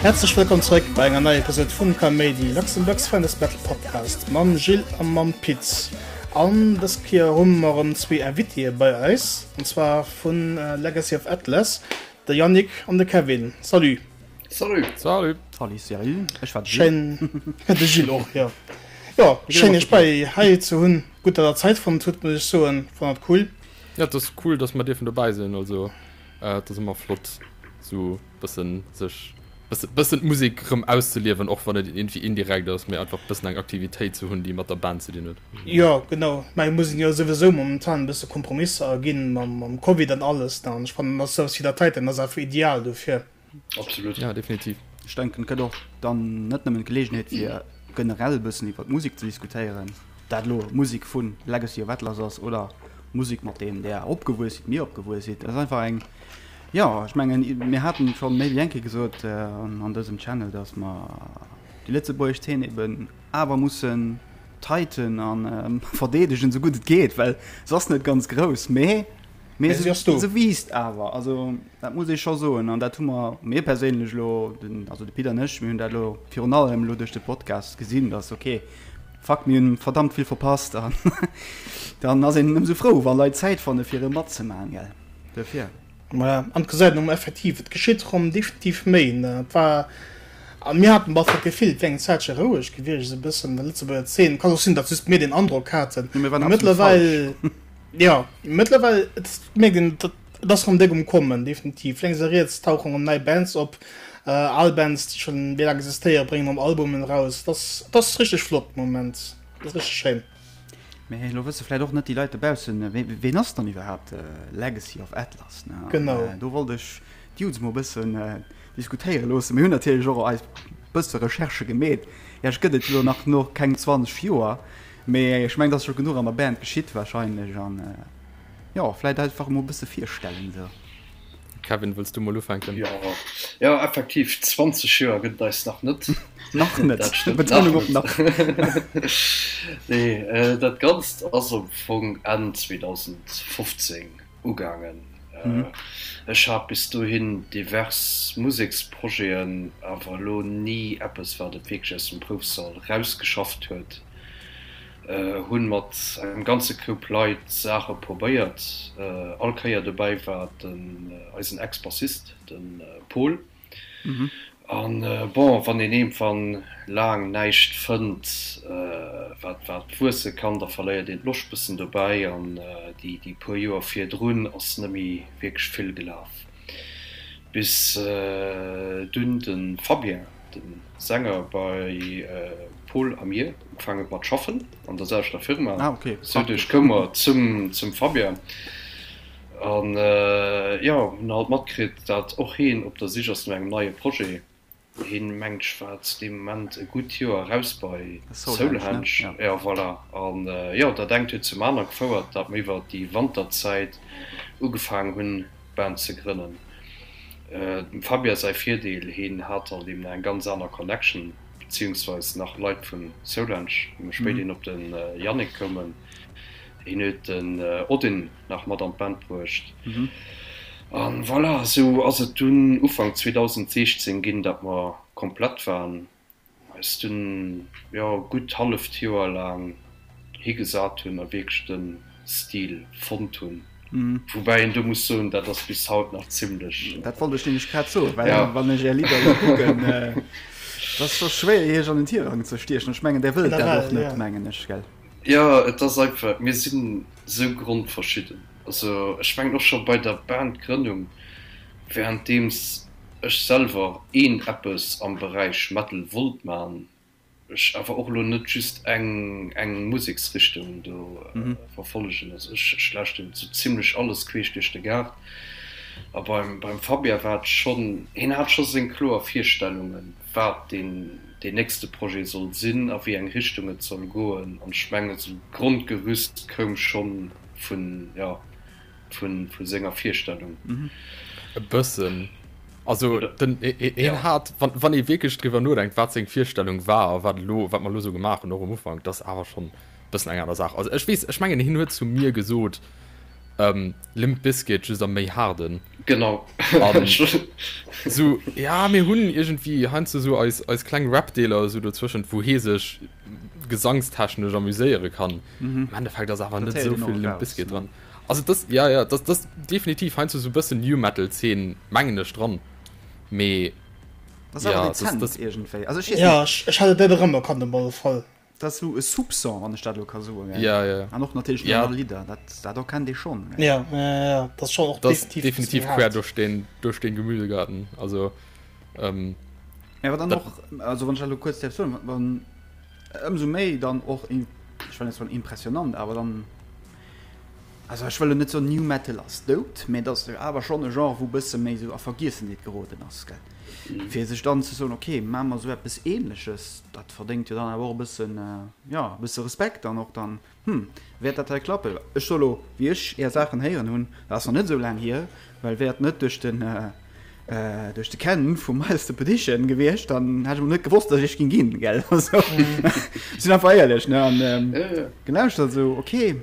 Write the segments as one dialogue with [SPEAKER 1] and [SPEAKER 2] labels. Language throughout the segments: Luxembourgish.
[SPEAKER 1] Häerzlech wëllkomm zeréck bei enger neier Episode vum Kaméidi, Luxembourg's finest metal podcast mam Gilles a mam Pit. An dës Kéier hu mer erëm zwee Invitéë bei eis, an zwar vu Legacy of Atlas, de Yannick an de Kevin. Salut!
[SPEAKER 2] Salut!
[SPEAKER 3] Salut!
[SPEAKER 4] Salut Cyril, ech war de Gilles.
[SPEAKER 1] Schéin, de Gilles och, jo. Jo, schéin iech bei hei ze hunn. Gutt, datt der Zäit fonnt hutt, muss ech soen. Fannen et cool.
[SPEAKER 3] Jo, et ass cool, datt mer dierfen dobäi sinn. Also, et ass ëmmer flott, sou bëssen sech, bëssen, bëssen d'Musek rëm auszeliewen, och wann et iergendwéi indirekt ass, mee einfach bëssen eng Aktivitéit ze hunn, déi mat der Band ze dinn huet.
[SPEAKER 1] Jo, genau. Mä et muss een jo souwisou momentan e bësse Kompromisser aginn mam, mam Covid an alles, ne. An ech fannen, dass souwas wéi der Titan ass einfach ideal dofir.
[SPEAKER 2] Absolut.
[SPEAKER 3] Ja, definitiv.
[SPEAKER 4] Ech denken, et gëtt och dann net nëmmen d'Geleegenheet fir generell e bëssen iwwer d'Musek ze diskutéieren, dat elo Musek vu Legacy of Atlas ass oder Musek mat deem där opgewuess sidd, mir opgewuess sidd. Et ass einfach eng, jo, ech mengen, mir haten et scho méi wéi eng Kéier gesot an dësem Channel, datt mer déi lëtzebuergesch Zeen eben awer mussen tighten a verdeedegen, esou gutt et geet, well se ass net ganz grouss, mee Mee se, se wiisst awer, also dat muss ee scho soen. An dat hu mer, mir perséinlech elo, den, also de Pit an ech, mir hunn dat elo virun allem elo duerch de Podcast gesinn, dass okay, fuck, mir hunn verdammt vill verpasst. An dann ass een ëmsou frou, wa Leit Zäit fanne fir e matzemaachen, gell. Duerfir.
[SPEAKER 1] Voilà, an et gesäit een och effektiv, et geschitt erëm definitiv méi, ne. Et war, a mir haten bal d'Gefill, et wär eng Zäitche roueg gewiescht, esou e bëssen an der Lëtzebuerger Zeen. Kann och sinn, datt just mir deen Androck haten.
[SPEAKER 4] Mee mir waren absolut
[SPEAKER 1] falsch. Jo, mëttlerweil et mierkt een, et ass rëm déck um Kommen, definitiv. Lénks a riets tauchen rëm nei Bands op, al Bands, déi schonn méi laang existéieren, bréngen rëm Albumen eraus. Et ass, et ass richteg flott de Moment, et ass richteg schéin.
[SPEAKER 4] Mee elo wësse vläit och net déi Leit dobaussen, ween ass dann iwwerhaapt Legacy of Atlas, ne?
[SPEAKER 1] Genau.
[SPEAKER 4] Do wollt ech d'Dudes mol e bëssen diskutéiere loossen. Mir hunn natierlech och eis bësse Recherchë gemeet. Iech gëtt et jo nach no keng 20 Joer. Mee ech mengen, et ass scho genuch an der Band geschitt wahrscheinlech an jo, vläit einfach emol e bësse virstellen esou.
[SPEAKER 3] Kevin, wëlls du mol ufänken?
[SPEAKER 2] Jo, jo, effektiv, 20 Joer gëtt et eis nach net.
[SPEAKER 4] Nach net,
[SPEAKER 2] Dat stëmmt,
[SPEAKER 4] Betonung op nach.
[SPEAKER 2] Nee, dat Ganzt ass am Fong Enn 2015 ugaangen. Ech hat bis dohin divers Museksprojeten, awer elo ni eppes, wat et wierklech aus dem Proufsall rausgeschafft huet. Hunn mat engem ganze Koup Leit Saache probéiert. All Kéier dobäi war den eisen Ex-Bassist, de Paul. An bon, wann een iergendwann laang näischt fënnt, wat wat wuesse kann, da verléiert een d'Loscht bëssen dobäi. An déi déi puer Joer virdrun ass net méi wierklech vill gelaf, bis dunn de Fabien, de Sänger bei Pol a mir, ugefaangen huet mat schaffen an der selwechter Firma. Sou duerch koum mer zum zum Fabien. An jo, hunn halt matkritt, dat och heen op der Sich ass no engem neie Projet. Heen, mengt ech, war zu deem Moment e gutt Joer eraus bei Soulhenge. Jo, voilà. An jo, dat engt huet zum aner gefouert, dat mer iwwer déi Wanterzäit ugefaangen hunn, d'Band ze grënnen. Dem Fabien säi Virdeel, heen hat halt eben nach eng ganz aner Connection, beziehungsweis nach Leit vu Soulhenge, wou mer spéiderhin op de Yannick koumen. Heen huet den Odin nach mat an d'Band bruecht. An voilà, esou ass et dunn Ufank 2016 ginn, dat mer komplett waren, eis dunn, jo, gutt halleft Joer laang higesat hunn a wierklech de Stil fonnt hunn. Woubäi een do muss soen, dat ass bis haut nach zimlech.
[SPEAKER 4] Dat wollt ech nämlech grad soen, well wann ech Är Lidder elo kucken, dat ass scho schwéier Iech an den Tirang ze stiechen. Ech mengen, Där wëllt dat och net, mengen ech, gell?
[SPEAKER 2] Jo, et ass einfach, mir sinn esou grondverschidden. Also ech mengen och scho bei der Bandgrënnung, währenddeems ech selwer een eppes am Beräich Metal wollt man, ech awer och elo net just eng eng Museksrichtung do verfollegen. Also ech ech lauschteren sou zimlech alles queesch duerch de Gaart. A beim beim Fabien war et schonn, hien hat scho seng kloer Virstellungen, wat deen deen nächste Projet soll sinn, a wéi eng Richtung et soll goen. An ech mengen, esou d'Grondgerüst koum schonn vun, jo, vun, vu senger Virstellung.
[SPEAKER 3] E bëssen. Also den, hien hat, wann, wann ee wierklech driwwer nodenkt, wat seng Virstellung war a wat elo, wat mer elo esou gemaach hunn, och um Ufank, dat ass awer schonn e bëssen eng aner Saach. Also ech weess, ech mengen, hien huet zu mir gesot, Limp Bizkit, just am méi haarden.
[SPEAKER 2] Genau.
[SPEAKER 3] An sou, ja, mir hunn iergendwéi heiansdo sou eis, eis kleng Rap-Deeler esou dozwëschent, wou hee sech gesangstechnesch amuséiere kann. Am Endeffekt ass awer
[SPEAKER 4] Dat
[SPEAKER 3] net
[SPEAKER 4] héiert
[SPEAKER 3] esou
[SPEAKER 4] een och
[SPEAKER 3] vill Limp
[SPEAKER 4] eraus,
[SPEAKER 3] Bizkit
[SPEAKER 4] ne?
[SPEAKER 3] dran. Also das, ja, ja, das, das definitiv heiansdo sou bëssen New Metal-Zeen, mengen ech, dran. Mee
[SPEAKER 4] Das ass awer
[SPEAKER 3] ja, das,
[SPEAKER 4] dezent
[SPEAKER 3] das,
[SPEAKER 4] iergendwéi. Also ech weess
[SPEAKER 1] Ja,
[SPEAKER 4] net.
[SPEAKER 1] ech, ech hat et net erëmerkannt op alle Fall.
[SPEAKER 4] Dat ass sou e Soupçon, wann ech dat elo ka soen, gell?
[SPEAKER 3] Ja, ja.
[SPEAKER 4] An och natierlech déi
[SPEAKER 3] Ja.
[SPEAKER 4] aner Lidder, dat, dat erkennt ee schonn, gell?
[SPEAKER 1] Ja, ja, ja, dat ass schonn och
[SPEAKER 3] Dat ass
[SPEAKER 1] definitiv e bësse
[SPEAKER 3] definitiv
[SPEAKER 1] méi
[SPEAKER 3] quer
[SPEAKER 1] haart.
[SPEAKER 3] duerch den, duerch den Gemüsegarten. Also, ähm,
[SPEAKER 4] Mä wat dann
[SPEAKER 3] dat.
[SPEAKER 4] och, also wann ech dat elo kuerz däerf soen, wann, ëmsou méi dann och, ech wëll net soen impressionant, awer dann, also ech wëll elo net soen New Metal ass dout, mä et ass jo awer schonn e Genre, wou e bësse méi esou a Vergiessenheet geroden ass, gell? Fir sech dann ze soen, okay, maache mer esou eppes Ähnleches, dat verdéngt jo dann awer och e bëssen, jo, e bësse Respekt dann och dann, hm, wäert dat hei klappen? Ech soe lo, wéi ech Är Saachen héieren hunn, dat ass nach net esou laang hier, well wär et net duerch den, duerch de Ken vu Miles the Petition gewiescht, dann hätt ech mol net gewosst, datt ech iech ging ginn, gell? Also, ech sinn einfach éierlech, ne? An gelauschtert esou, okay,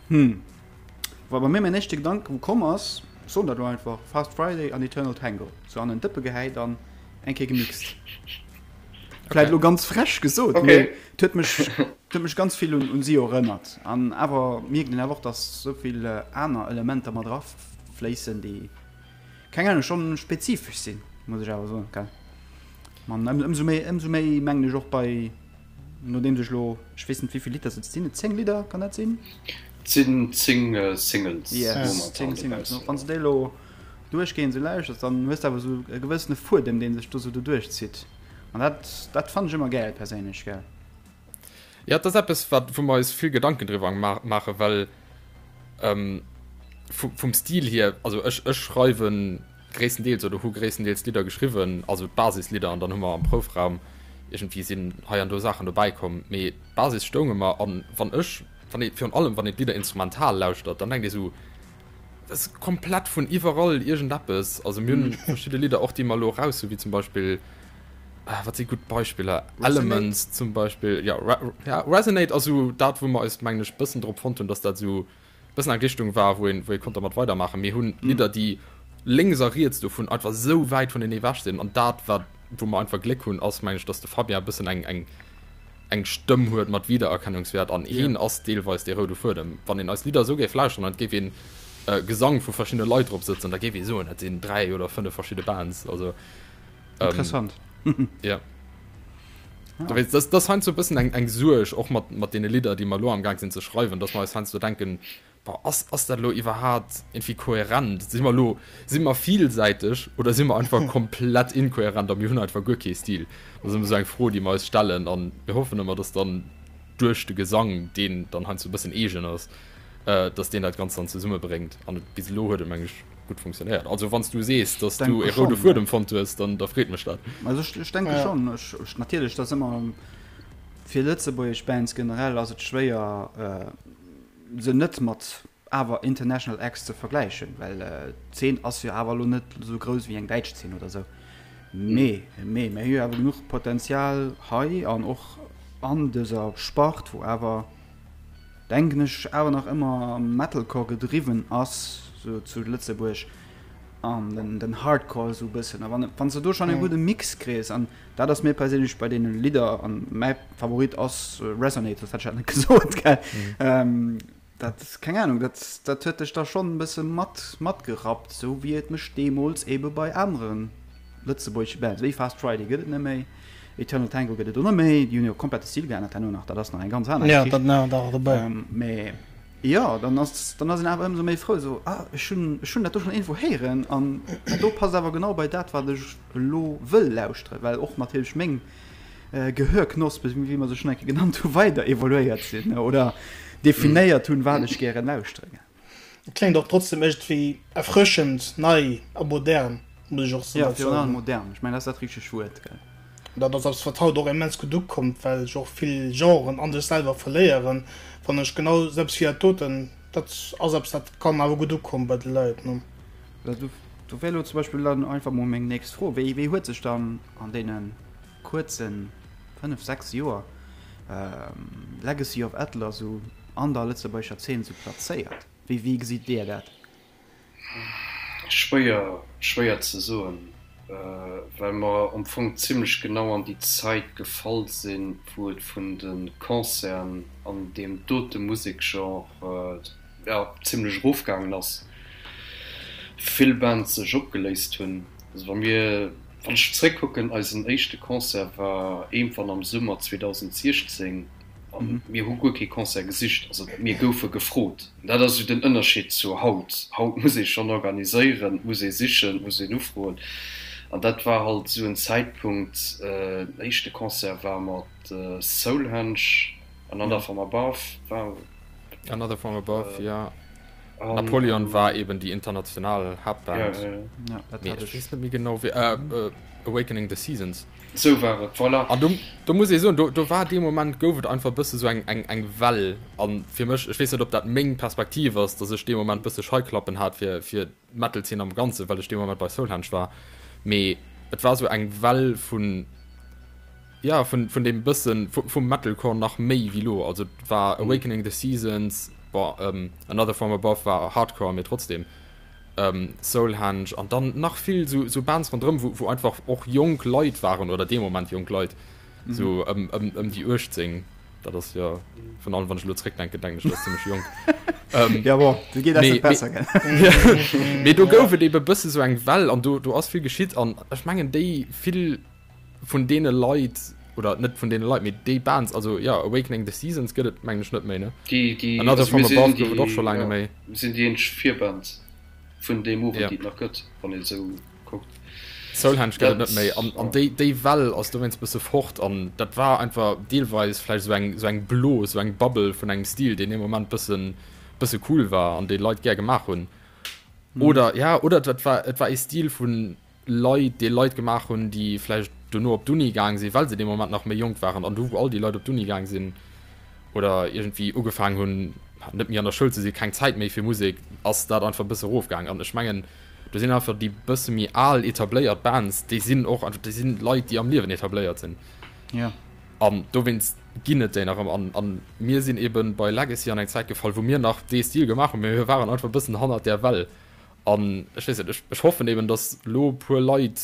[SPEAKER 4] hm. War bei mir mäin éischte Gedanke wou komm ass, ech soen dat elo einfach, Fast Friday an Eternal Tango, sou an en Dëppe gehäit an eng Kéier gemixt. Vläit elo ganz frech gesot, mee et huet mech, et huet mech ganz vill un un si erënnert. An awer mierkt een awer och, dass sou vill aner Elementer mat erafléissen, déi, keng Ahnung, schonn spezifesch sinn, muss ech awer soen, gell. An ëmsou méi, ëmsou méi mengen ech och bei. Nodeems ech lo, ech weess net wéivill Lidder et sinn, et 10 Lidder, kann dat sinn?
[SPEAKER 2] Et sinn 10 Singles
[SPEAKER 4] Yes, 10 Singles. Wann s de déi elo duerchgehend esou lauschters, dann hues de awer esou e gewëssene Fuedem, dee sech do esou doduerch zitt. An dat, dat fannen ech ëmmer gäil perséinlech, gell.
[SPEAKER 3] Jo, et ass eppes, wat, wou mer eis vill Gedanken driwwer maachen, well vum Stil hier, also ech, ech schreiwen gréisstendeels oder hu gréisstendeels d'Lidder geschriwwen, also d'Basislidder, an dann hu mer am Proufraum iergendwéi sinn hei an do Saachen dobäi komm, mee d'Basis stoung ëmmer. An wann ech, wann ee, virun allem wann een d'Lidder instrumental lauschtert, dann denkt ee sou, dat ass komplett vun iwwerall iergendeppes. Also mir hunn verschidde Lidder och, déi mer elo eraus hunn, wéi zum Beispill, wat si gutt Beispiller, Elements zum Beispill, jo, ja, Resonate ass esou dat, wou mer eis, mengen ech, bëssen drop fonnt hunn, dass dat esou bëssen eng Richtung war, wou een, wou ee konnt dermat weidermaachen. Mir hunn Lidder, déi lénks a riets dovun einfach esou wäit vunenee ewech sinn. An dat, wat, wou mer einfach Gléck hunn, ass, mengen ech, dass de Fabien e bëssen eng, eng, eng Stëmm huet mat Wiedererkennungswäert an heen ass deelweis dee roude Fuedem. Wann een eis Lidder esou géif lauschteren an et géif een Gesang vu verschiddene Leit drop sëtzen, da géif ee soen, dat sinn 3 oder 5 verschidde Bands. Also,
[SPEAKER 4] Interessant.
[SPEAKER 3] Ja. Du weess, das, das heiansdo e bëssen eng, eng Suerg, och mat, mat deene Lidder, déi mer elo amgaang sinn ze schreiwen, dass mer eis heiansdo denken, Boah, ass, ass dat elo iwwerhaat irgendwie kohärent? Si mer elo, si mer vielsäiteg oder si mer einfach komplett inkohärent a mir hunn einfach guer kee Stil? Dat ass ëmmer esou eng Fro, déi mer eis stellen a mir hoffen ëmmer, dass dann duerch de Gesang, deen dann heiansdo e bëssen eegen ass, dass deen dat Ganzt dann zesummebréngt. An bis elo huet et, meng ech, gutt funktionéiert. Also wann s du sees, dass du e roude Fuedem fonnt hues, dann da freet mech dat.
[SPEAKER 4] Also ech, ech denke ja. schon. Ech, ech, natierlech, dat ëmmer fir lëtzebuergesch Bands generell ass et schwéier äh, se net mat awer international Acts ze vergläichen, well äh, d'Zeen ass jo awer lo net sou grouss wéi eng däitsch Zeen oder sou. Mee, mee, mir hu jo awer genuch Potenzial hei an och an dëser Spart, wou awer denken ech, awer nach ëmmer Metalcore gedriwwen ass, sou zu Lëtzebuerg, an den, den Hardcore esou e bëssen. A wann, wann s de do schonn e gudde Mix kriss, an dat ass mir perséinlech bei deene Lidder, an mäi Favorit ass Resonate, soss hätt ech dat net gesot, gell. Dat, keng Ahnung, dat, dat huet dech da schonn e bësse mat, matgerappt, sou wéi et mech deemools ebe bei anere lëtzebuergesche Bands, wéi Fast Friday gëtt et net méi, Eternal Tango gëtt et och net méi, déi hunn jo komplett de Stil geännert herno nach, dat ass nach eng ganz aner
[SPEAKER 1] Geschicht. Ja, dat nach nach dobäi.
[SPEAKER 4] Mee jo, dann ass, dann ass een awer ëmsou méi frou, esou, ah, ech hunn, ech hunn dat do schonn iergendwou héieren an dat do passt awer genau bei dat, wat ech elo wëll lauschteren, well och natierlech meng Gehörknospe, wéi mer se schonn eng Kéier genannt hunn, weider evoluéiert sinn oder definéiert hunn, wat ech gären lauschteren.
[SPEAKER 1] Et kléngt och trotzdem iergendwéi erfrëschend, nei a modern, muss ech och
[SPEAKER 4] Jo, virun allem modern. Ech mengen, dat ass dat richtegt Wuert, gell?
[SPEAKER 1] Dat ass eppes, wat haut och immens gutt ukommt, well sech och vill Genren an sech selwer verléieren, fannen ech. Genau esou eppes wéi dat doten, dat ass eppes, dat kann awer gutt ukommen bei de Leit, ne?
[SPEAKER 4] Do wär elo zum Beispill dann einfach mol meng nächst Fro, Wéi, wéi huet sech dann an deene kuerze 5, 6 Joer Legacy of Atlas esou an der lëtzebuergescher Zeen esou plazéiert? Wéi, wéi gesitt Dir dat?
[SPEAKER 2] Schwéier, schwéier ze soen, well mer am Fong zimlech genau an déi Zäit gefall sinn, wou et vun de Concerten an deem dote Musekgenre, jo, zimlech erofgaangen ass, vill Bands sech opgeléist hunn. Also wa mir, wann ech zréckkucken, eisen éischte Concert war iergendwann am Summer 2016 a mir hu guer kee Concert gesicht, also mir goufe gefrot. Dat ass esou den Ënnerscheed zu haut. Haut muss ee schonn organiséieren, et muss ee sichen, et muss een ufroen. An dat war halt esou en Zäitpunkt, den éischte Concert war mat Soulhenge, Another From Above war.
[SPEAKER 3] Another From Above, ja. Napoleon war eben déi international Haaptband.
[SPEAKER 4] Ja, dat hat ech.
[SPEAKER 3] Ech weess net méi genau wéi, Awakening the Seasons.
[SPEAKER 2] Sou war et, voilà.
[SPEAKER 3] An do, do muss ee soen, do, do war dee Moment, gouf et einfach e bësse sou eng, eng, eng Well. An fir mech, ech weess net, ob dat meng Perspektiv ass, datt ech dee Moment bësse Scheiklappen hat fir, fir d'Metal-Zeen am Ganzen, well ech dee Moment bei Soulhenge war. Mee et war sou eng Well vun, ja, vun, vun deem bëssen, vu, vum Metalcore nach méi wéi lo. Also et war Awakening the Seasons, bon, Another From Above war Hardcore, mee trotzdem. Soulhenge an dann nach vill sou sou Bands ronderëm wou wou einfach och jonk Leit waren oder dee Moment jonk Leit sou ëm ëm ëm déi 18 dat ass jo vun allem wann ech elo zréckdenken denken ech dat ass zimmlech jonk ähm,
[SPEAKER 4] ja bon du geet
[SPEAKER 3] mee,
[SPEAKER 4] besser gell
[SPEAKER 3] mee do gouf et ebe bësse sou eng Well an do do ass vill geschitt an ech mengen déi vill vun deene Leit oder net vun deene Leit mee déi Bands also ja Awakening the Seasons gëtt et mengen ech net méi ne
[SPEAKER 2] Déi, déi,
[SPEAKER 3] Another
[SPEAKER 2] also
[SPEAKER 3] From
[SPEAKER 2] mir sinn
[SPEAKER 3] Above gouf et
[SPEAKER 2] déi,
[SPEAKER 3] och scho laang
[SPEAKER 2] ja,
[SPEAKER 3] net méi.
[SPEAKER 2] mir sinn déi eenzeg Virband vun deem Owend
[SPEAKER 3] Ja.
[SPEAKER 2] déi et nach gëtt, wann ee sou kuckt.
[SPEAKER 3] Soulhenge gëtt et
[SPEAKER 2] Dat,
[SPEAKER 3] net méi an an
[SPEAKER 2] ja.
[SPEAKER 3] déi déi Well ass dowéinst bësse fort an dat war einfach deelweis vläicht esou eng esou eng Blos, esou eng Bubble vun engem Stil deen dee Moment bëssen bësse cool war an dee Leit gär gemaach hunn oder ja oder dat war et war ee Stil vun Leit, dee Leit gemaach hunn, déi vläicht dono op d'Uni gaang sinn, well se dee Moment nach méi jonk waren an du wou all déi Leit op d'Uni gaang sinn oder iergendwéi ugefaangen hunn, net méi an der Schoul ze sinn, keng Zäit méi fir Musek, ass dat einfach e bësse erofgaang. An ech mengen, do sinn einfach déi bësse méi al etabléiert Bands, déi sinn och einfach, déi sinn Leit, déi am Liewen etabléiert sinn.
[SPEAKER 4] Ja.
[SPEAKER 3] An dowéinst ginn et déi nach ëmmer. An, an mir sinn eebe bei Legacy an eng Zäit gefall, wou mir nach dee Stil gemaach hunn, mee mir waren einfach e bëssen hannert där Well. An ech weess net, ech, ech hoffen eben, dass elo e puer Leit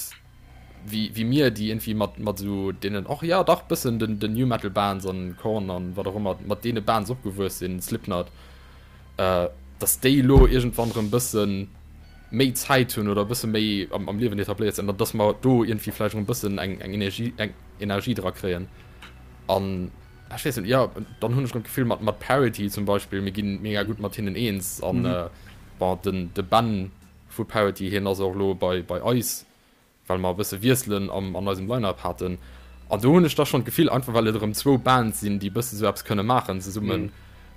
[SPEAKER 3] wéi, wéi mir, déi iergendwéi mat, mat esou deenen, och jo dach bëssen den, den New Metal Bands an Korn an wat och ëmmer, mat deene Bands opgewuess sinn, Slipknot, dass déi elo iergendwann erëm bësse méi Zäit hunn oder e bësse méi am, am Liewen etabléiert sinn, an dass mer do iergendwéi vläicht erëm e bëssen eng, eng Energie, eng Energie dra kréien. An ech weess net, jo, dann hunn ech erëm d'Gefill mat, mat Parity zum Beispill, mir ginn mega gutt mat hinnen eens an, Bon, den de Ben vu Parity, hien ass och elo bei bei eis, well mer e bësse Wiesselen am an eisem Line-Up haten. An do hunn ech da schonn d'Gefill, einfach well et erëm zwou Bands sinn, déi e bësse sou eppes kënne maachen zesummen,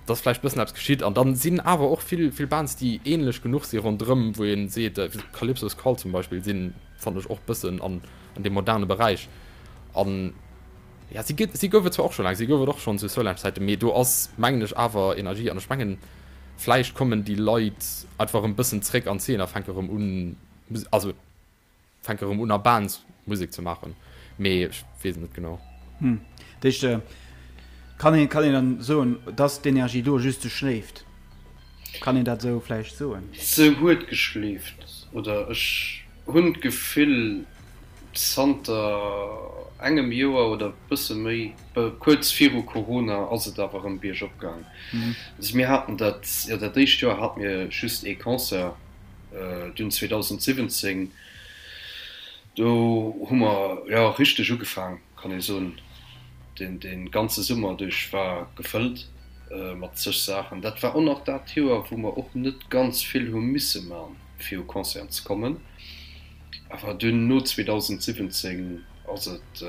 [SPEAKER 3] dass vläicht bëssen eppes geschitt. An dann sinn awer och vill vill Bands, déi ähnlech genuch si ronderëm, wou ee seet, Calypso's Call zum Beispill sinn, fannen ech, och bëssen an an deem moderne Beräich. An Ja, si gëtt, si gouf et zwar och scho laang, si gouf et och schonn zu Solange-Zäiten, mee do ass, mengen ech, awer Energie an ech mengen, vläicht kommen déi Leit einfach erëm bëssen zréck an d'Zeen a fänke erëm un, also fänke erëm un a Bands Musek ze maachen, mee ech weess et net genau.
[SPEAKER 4] Hm, dat heescht, kann een, kann een dann soen, dass d'Energie do just se schléift? Kann een dat esou vläicht soen?
[SPEAKER 2] Se huet geschleeft, oder ech hunn d'Gefill, Zanter engem Joer oder bësse méi, kuerz viru Corona, ass et awer erëm biergop gaang. Also mir haten dat, jo dat éischt Joer hate mir just ee Concert, dunn 2017, do hu mer jo richteg ugefaang, kann ee soen. Den dee ganze Summer duerch war gefëllt mat zeg Saachen. Dat war och nach dat Joer, wou mer och net ganz vill hu misse man, fir u Concerten ze kommen. Awer dunn no 2017 ass et,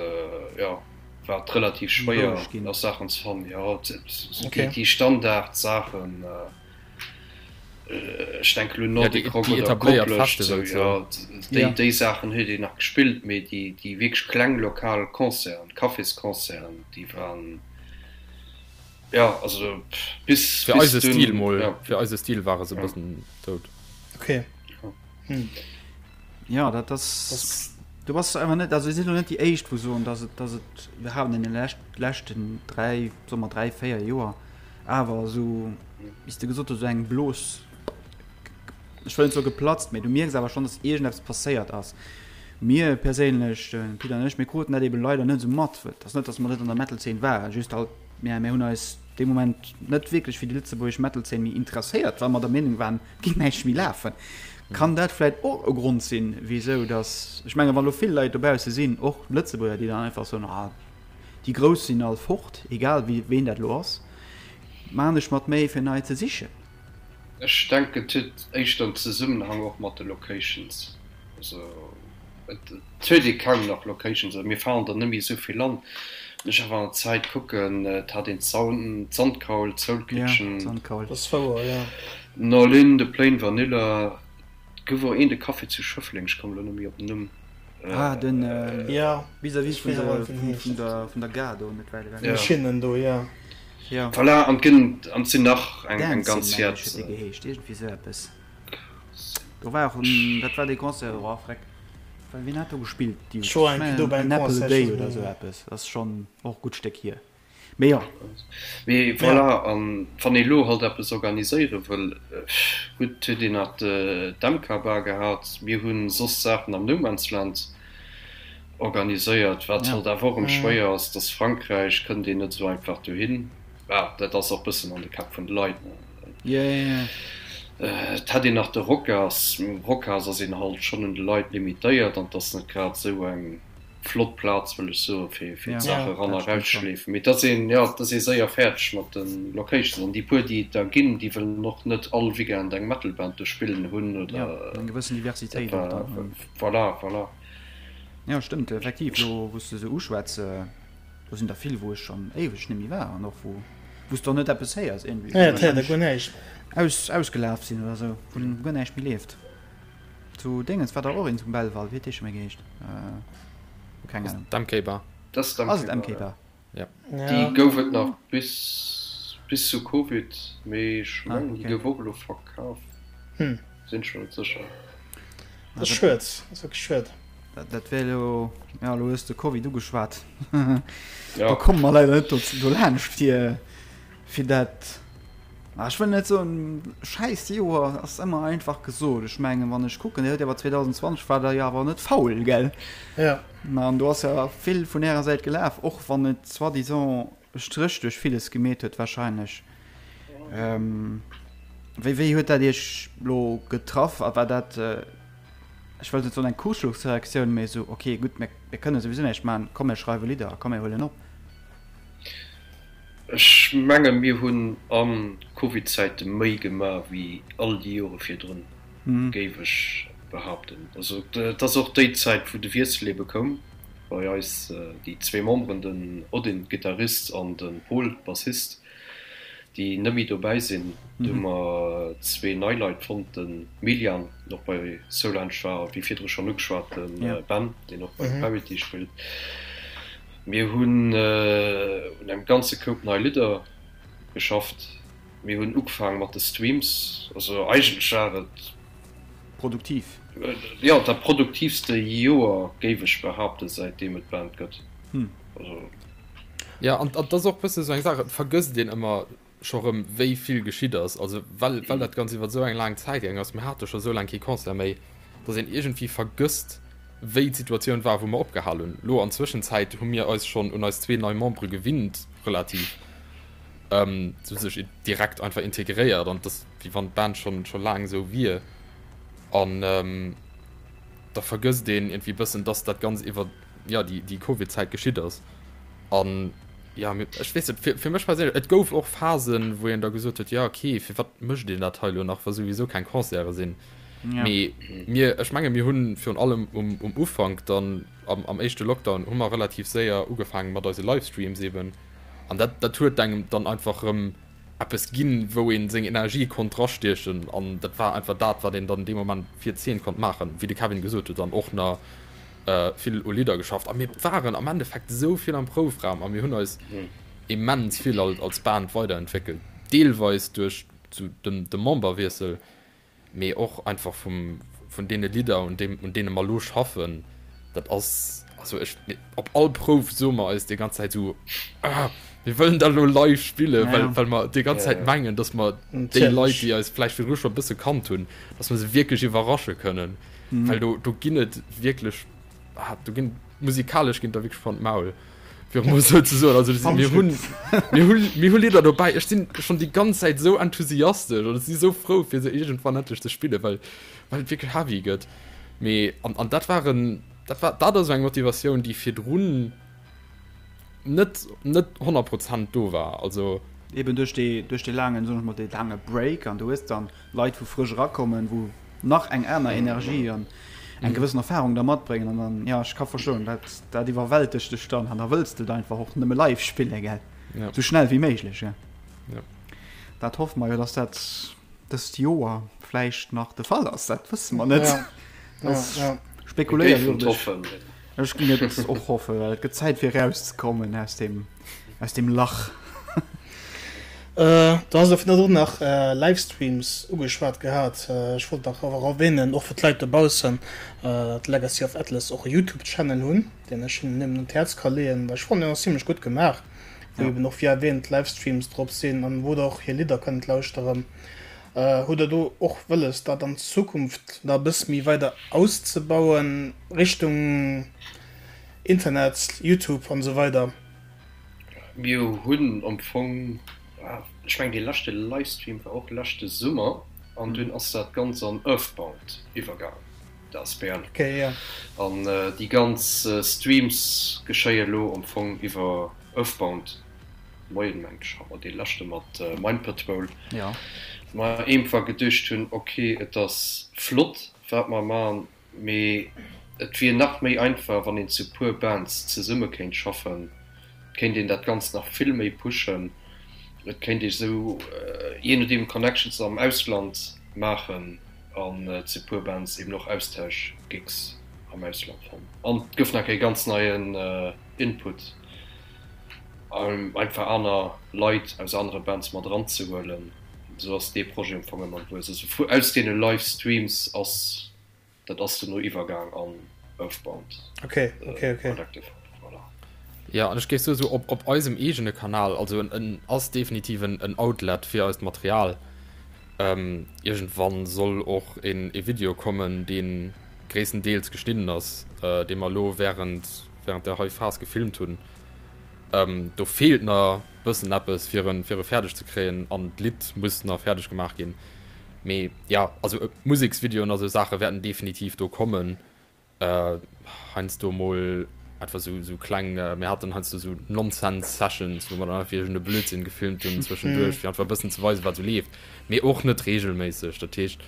[SPEAKER 2] jo, war et relativ schwéier nach Saachen ze fannen. Jo, déi Standardsaachen, ech denke lo Nordic Rock oder Koplescht, esou, jo, déi Saachen huet een nach gespillt, mee déi wierklech kleng lokal Concerten, Cafésconcerten, déi waren, jo, also bis
[SPEAKER 3] Fir eise Stil mol, fir eise Stil ware se e bëssen dout.
[SPEAKER 1] Okay.
[SPEAKER 4] Hm. Ja, dat ass. Du bass einfach net, also si sinn net déi éischt wou soen, datt et, datt et iwwerhaapt an den leschten 3, soe mer 3, 4 Joer awer esou, wéi s de gesot hues, esou eng Blos. ech wëll net soe geplatzt, mee du mierks awer schonn, dass iergendeppes passéiert ass. Mir perséinlech, de Pit an ech, mir kruten dat ebe leider net esou mat. Et ass net, dass mer net an der Metal-Zeen waren, just halt, mir, mir hunn eis dee Moment net wierklech fir déi lëtzebuergesch Metal-Zeen méi interesséiert, well mer der Meenung waren, et géing näischt méi lafen. Kann dat vläit och e Grond sinn, wisou dass, ech menge wa lo vill Leit dobausse sinn, och Lëtzebuerger, déi dann einfach soen, ah, déi Grouss sinn all fort, egal wie, ween dat elo ass, maan ech mer d'Méi fir nei ze sichen.
[SPEAKER 2] Ech denken et huet éischter en Zesummenhang och mat de Locations. Also et huet ee kaum nach Locations, also mir fahren der net méi esou vill an. Wann ech awer an der Zäit kucken, et hat een d'Sandkaul, d'Soul Kitchen, Nolin, de Plain Vanilla, et gouf och een de Café zu Schëffleng, ech kommen elo net méi op den Numm.
[SPEAKER 4] Ah den vis-à-vis vun der Gare do net wäit ewech.
[SPEAKER 1] Schinnen do, jo.
[SPEAKER 2] Voilà, an et gënn, an et sinn nach eng ganz
[SPEAKER 4] Dancing, mengen ech, huet dee geheescht, iergendwéi esou eppes. Do war och en, dat war dee Concert, oh freck, wien hat do gespillt? Déi,
[SPEAKER 1] Ech war eng Kéier do bei
[SPEAKER 4] engem
[SPEAKER 1] An
[SPEAKER 4] Apple a
[SPEAKER 1] Concert,
[SPEAKER 4] Day oder esou eppes, ass schonn och e gutt Stéck hier. Mee jo.
[SPEAKER 2] Mee voilà, an wann ee lo halt eppes organiséiere wëll, gutt, huet een nach d'MK Bar gehat, mir hu soss Saachen am No Man's Land organiséiert, wat halt awer och erëm schwéier ass, dass Frankräich kënnt een net esou einfach dohin. Bah, dat ass och bëssen an de Käpp vun de Leit, ne. Et hätt een nach de Rocas, mee um Rocas ass een halt schonn un de Leit limitéiert an 't ass net grad esou eng flott Plaz, wëll ech soen, fir fir d'Saache ran a rausschleefen. Mee 't ass een, jo, 't ass ee séier fäerdeg mat de Locations an déi puer, déi et der ginn, déi wëllen och net all Weekend eng Metal-Band do spillen hunn oder.
[SPEAKER 4] Eng gewëssen Diversitéit och dann.
[SPEAKER 2] Voilà, voilà.
[SPEAKER 4] Jo, stëmmt, effektiv, elo wou s de se uschwätz. Do sinn der vill wou ech schon éiweg nemmi war an och wou wous de och net eppes héiers iergendwéi.
[SPEAKER 1] Ja, et héiert e guer näischt.
[SPEAKER 4] Aus ausgelaf sinn oder sou, wou guer näischt méi leeft. Zu Déngens war der och een zum Belval, wéi huet dee scho méi geheescht? Keng Ahnung.
[SPEAKER 3] D'MK Bar.
[SPEAKER 2] Dat ass
[SPEAKER 4] Ass et MK Bar?
[SPEAKER 3] Ja.
[SPEAKER 2] Déi gouf et nach bis bis zu Covid, mee ech mengen déi gouf och elo verkaf. Sinn ech mer net sécher.
[SPEAKER 1] Dat ass schued, dat ass wierklech schued.
[SPEAKER 4] Dat wär elo, ja elo hues de Covid ugeschwat, da komme mer leider net dolaanscht fir fir dat, ah ech wëll net soen schäiss Joer ass ëmmer einfach gesot. Ech mengen wann ech kucken, Dir huet awer 2020 war der jo awer net faul, gell?
[SPEAKER 1] Jo.
[SPEAKER 4] An do ass jo vill vun Ärer Säit gelaf, och wann et soi-disant e Stréch duerch villes gemeet huet wahrscheinlech. Wéi wéi huet dat Iech lo getraff a war dat, ech wëllt net soen eng Kursschlussreaktioun, mee esou ok gutt mir mir kënne souwisou näischt maachen, komm mir schreiwe Lidder a komm mir huelen op?
[SPEAKER 2] Ech menge mir hunn a Covid-Zäite méi gemaach wéi all déi Jore virdrun, géif ech behaapten. Also et ass och déi Zäit wou de Wiessel ebe koum bei eis, déi zwee Memberen, den Odin, Gittarist, an de Pol, Bassist. déi net méi dobäi sinn. Do hu mer zwee nei Leit fonnt, de Milian, deen och bei Solange war, a wéi virdru schonn ugeschwat, de Ben, deen och bei Parity spillt. Mir hunn un engem ganze Koup nei Lidder geschafft. Mir hunn ugefaange mat de Streams. Also eigentlech war et.
[SPEAKER 4] Produktiv.
[SPEAKER 2] Jo, dat produktiivste Joer, géif ech behaapten, säitdeem et d'Band gëtt. Also.
[SPEAKER 3] Ja, an dat ass och bësse sou eng Saach, et vergësst een ëmmer scho rëm, wéi vill geschitt ass. Also well, well dat Ganzt iwwer esou eng laang Zäit gaang ass, mir hate scho sou laang kee Concert méi, datt een iergendwéi vergësst, wéi d'Situatioun war, wou mer opgehal hunn. Lo an Zwëschenzäit hu mir eis schonn un eis zwee nei Membere gewinnt, relativ, se hu sech direkt einfach integréiert an et ass, wéi wann d'Band schonn, scho laang esou wier. An da vergësst een iergendwéi bëssen, datt dat Ganzt iwwer. ja, déi, déi Covid-Zäit geschitt ass. An ja, ech weess net, fir, fir mech perséinlech, et gouf och Phasen, wou een da gesot huet, ja okay, firwat mécht een dat hei elo nach, wa souwisou keng Concerte sinn.
[SPEAKER 4] Ja.
[SPEAKER 3] Mee mir, ech menge mir hunn virun allem um, um Ufank dann am, am éischte Lockdown hu mer relativ séier ugefaangen mat eise Livestreams eben. An dat, dat huet engem dann einfach erëm eppes ginn, wou ee seng Energie konnt drastiechen. An dat war einfach dat, wat een dann dee Moment fir d'Zeen konnt maachen, wéi de Kevin gesot huet, dann och nach vill u Lidder geschafft a mir waren am Endeffekt esou vill am Proufraum a mir hunn eis immens vill als Band weiderentwéckelt, deelweis duerch de Memberwiessel, mee och einfach vum vun deene Lidder un deem un deene mer elo schaffen. Dat ass. also ech, op all Prouf soe mer eis déi ganz Zäit esou, ah, mir wëllen dat elo live spillen, well, well mer déi ganz Zäit mengen, dass mer déi Leit, déi eis vläicht virdru scho e bësse kannt hunn, dass mer se wierklech iwwerrasche kënnen. Well do, do ginn et wierklech, ah, do ginn, musikalesch ginn der wierklech von d'Maul, fir emol esou ze soen. Also mir hunn, mir hunn, mir hu Lidder dobäi, ech sinn schonn déi ganz Zäit esou enthusiastesch an ech si sou frou, fir se iergendwann endlech ze spillen, well, well et wierklech heavy gëtt. Mee, an, an dat waren, dat war, dat ass eng Motivatioun, déi virdrun net, net 100 Prozent do war. Also.
[SPEAKER 4] Eben duerch dee, duerch dee laangen, soen ech mol, dee laange Break an du hues dann Leit wou frësch erakommen, wou nach eng aner Energie an eng gewëssen Erfahrung da matbréngen an dann, jo, ech ka verstoen, dat, dat iwwerwältegt dech dann an da wëlls de et einfach och nëmme live spillen, gell, sou schnell wéi méiglech, jo. Dat hoffe mer jo, dass dat dëst Joer vläicht nach de Fall ass, dat wësse mer net. Ja, spekuléieren ech. Ech ginn et och hoffen, well et gëtt Zäit fir erauszekommen aus dem, aus dem Lach.
[SPEAKER 1] Äh, du has och virdrun nach Livestreams ugeschwat gehat. Ech wollt nach awer erwähnen, och fir d'Leit dobaussen, datt Legacy of Atlas och e Youtube-Channel hunn, deen ech hinnen nëmmen un d'Häerz ka leeën, well ech fannen, deen ass zimlech gutt gemaach. wou eben och wéi erwähnt Livestreams drop sinn an wou der och hir Lidder kënnt lauschteren. Hutt der do och wëlles dat an Zukunft nach e bësse méi weider auszebauen Richtung Internet, Youtube an esou weider?
[SPEAKER 2] Mir hunn am Fong, ech mengen dee leschte Livestream war och leschte Summer an dunn ass dat Ganzt an Earthbound iwwergaangen, d'asbl. An déi ganz Streams geschéie lo am Fong iwwer Earthbound. Moien, mengt ech hat mer dee leschte mat Mind Patrol, mer eenfach geduecht hunn, ok et ass flott wat mer man, mee et wier nach méi einfach wann een zu puer Bands zesumme kéint schaffen, et kéint een dat Ganzt nach vill méi pushen, et kéint ee sou jee nodeem Connections am Ausland maachen an zu puer Bands eben och Austausch-Gigs am Ausland fannen an et gouf nach e ganz neien Input. Einfach aner Leit aus anere Bands mat eranzehuelen. Esou ass dee Projet am Fong ëmmer gewuess. Also vu aus deene Live Streams ass dat ass dono iwwergaang an Earthbound
[SPEAKER 1] Collective.
[SPEAKER 3] Voilà. Jo, an ech géif soen, esou op op eisem eegene Kanal, also en en ass definitiv en en Outlet fir eist Material. Iergendwann soll och een ee Video kommen, dee gréisstendeels geschnidden ass, dee mer elo wärend während der hei Phas gefilmt hunn. Do feelt na bëssen eppes fir en fir e fäerdeg ze kréien an d'Lidd muss na fäerdeg gemaach ginn. Mee ja also Museksvideoen a sou Saache wäerten definitiv do kommen. Heiansdo mol einfach sou sou kleng, mir haten heiansdo sou Nonsense Sessions, wou mer dann einfach iergend e Blödsinn gefilmt hunn zwëschenduerch fir einfach e bëssen ze weisen wat sou leeft, mee och net reegelméisseg. Dat heescht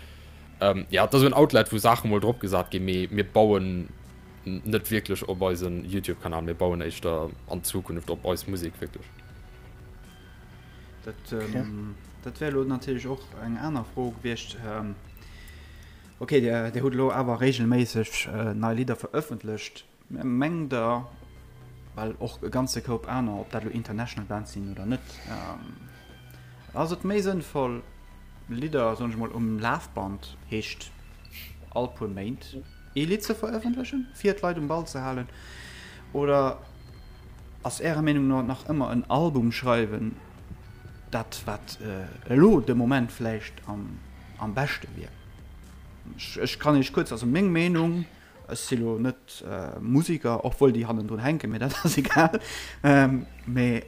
[SPEAKER 3] ja et ass esou en Outlet wou Saache mol drop gesat ginn, mee mir bauen Net wierklech op eisen Youtube Kanal, mir bauen éischter an Zukunft op eis Musek wierklech.
[SPEAKER 4] Dat, dat wär elo natierlech och eng aner Fro gewiescht. Okay, Dir, Dir hutt elo awer reegelméisseg nei Lidder verëffentlecht. Mengt Der, well och e ganze Koup aner, ob dat elo international Bands sinn oder net, ass et méi sënnvoll Lidder, soen ech mol, um Lafband, heescht all puer Méint, ee Lidd ze verëffentlechen, fir d'Leit um Ball ze halen? Oder ass Ärer Meenung no nach ëmmer en Album schreiwen dat, wat elo de Moment vläicht am beschte wier? Ech kann Iech kuerz, also meng Meenung, ech si lo net Musiker, obwuel déi hannendrun hänken, mee dat ass egal, mee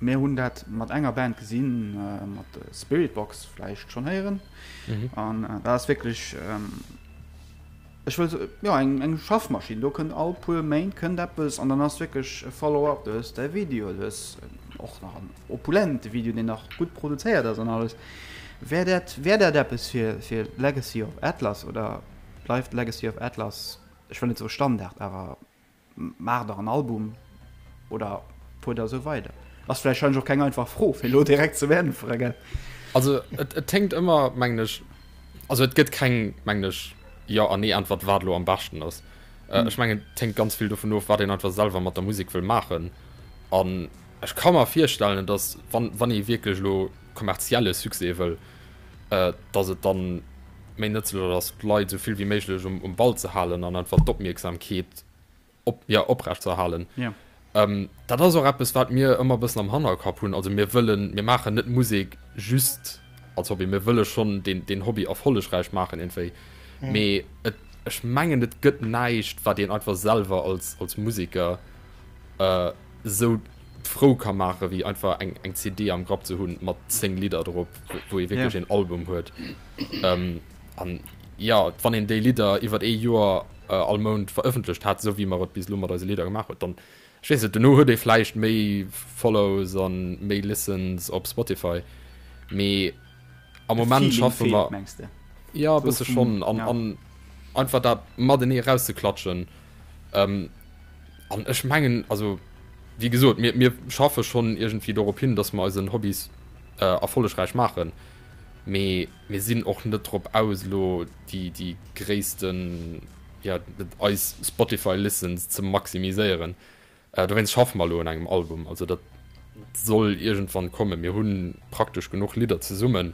[SPEAKER 4] mir hunn dat mat enger Band gesinn, mat Spiritbox, vläicht schonn héieren, an dat ass wierklech, Ech wëll soen, jo, eng, eng Schaffmaschinn. Do kënnt all puer Méint kënnt eppes an dann ass wierklech e Follow-up. Du hues däi Video, du hues och nach en opulente Video, deen nach gutt produzéiert ass an alles. Wär dat, wär dat eppes fir, fir Legacy of Atlas oder bleift Legacy of Atlas, ech wëll net soe Standard, awer Maacht der en Album oder fuert der esou weider? Ass vläicht wahrscheinlech och keng einfach Fro fir elo direkt ze beäntweren, gell?
[SPEAKER 3] Also et et hänkt ëmmer, mengen ech, also et gëtt keng, mengen ech, Jo an Nee-Äntwert, wat elo am beschten ass. Ech mengen, et hänkt ganz vill dovun of, wat een einfach selwer mat der Musek wëll maachen. An ech ka mer virstellen, datt wann wann ee wierklech elo kommerzielle Succès wëll, datt et dann méi nëtzlech ass, d'Leit esou vill wéi méiglech um Ball ze halen an einfach d'Opmierksamkeet. Op, ja, oprecht ze erhalen. Ja. Ähm, dat ass och eppes, wat mir ëmmer e bëssen am Hannerkapp hunn. Also mir wëllen, mir maachen net Musek just als Hobby, mir wëlle schonn deen, deen Hobby erfollegräich maachen iergendwéi. Mhm. Mee et, ech mengen, et gëtt näischt, wat een einfach selwer als, als Museker äh, sou frou ka maache wéi einfach eng, eng CD am Grapp ze hunn mat 10 Lidder drop, wou ee wierklech yeah. een Album huet. Ähm, an ja, wann een déi Lidder iwwer ee Joer all Mount verëffentlecht hat, esou wéi mer et bis elo mat eise Lidder gemaach huet, dann, ech weess net, dono huet ee vläicht méi Follows a méi Listens op Spotify, mee am Moment schaffe mer. Jo, e bësse schonn. An, an einfach dat matenee erauszeklatschen. An ech mengen, also wéi gesot, mir, mir schaffe schonn iergendwéi dorop hin, datt mer eisen Hobbys erfollegräich maachen, mee mir sinn och net drop aus, elo déi, déi gréissten, ja, eis Spotify Listens ze maximiséieren. Dowéinst schaffe mer elo un engem Album. Also dat soll iergendwann kommen. Mir hu praktesch genuch Lidder zesummen,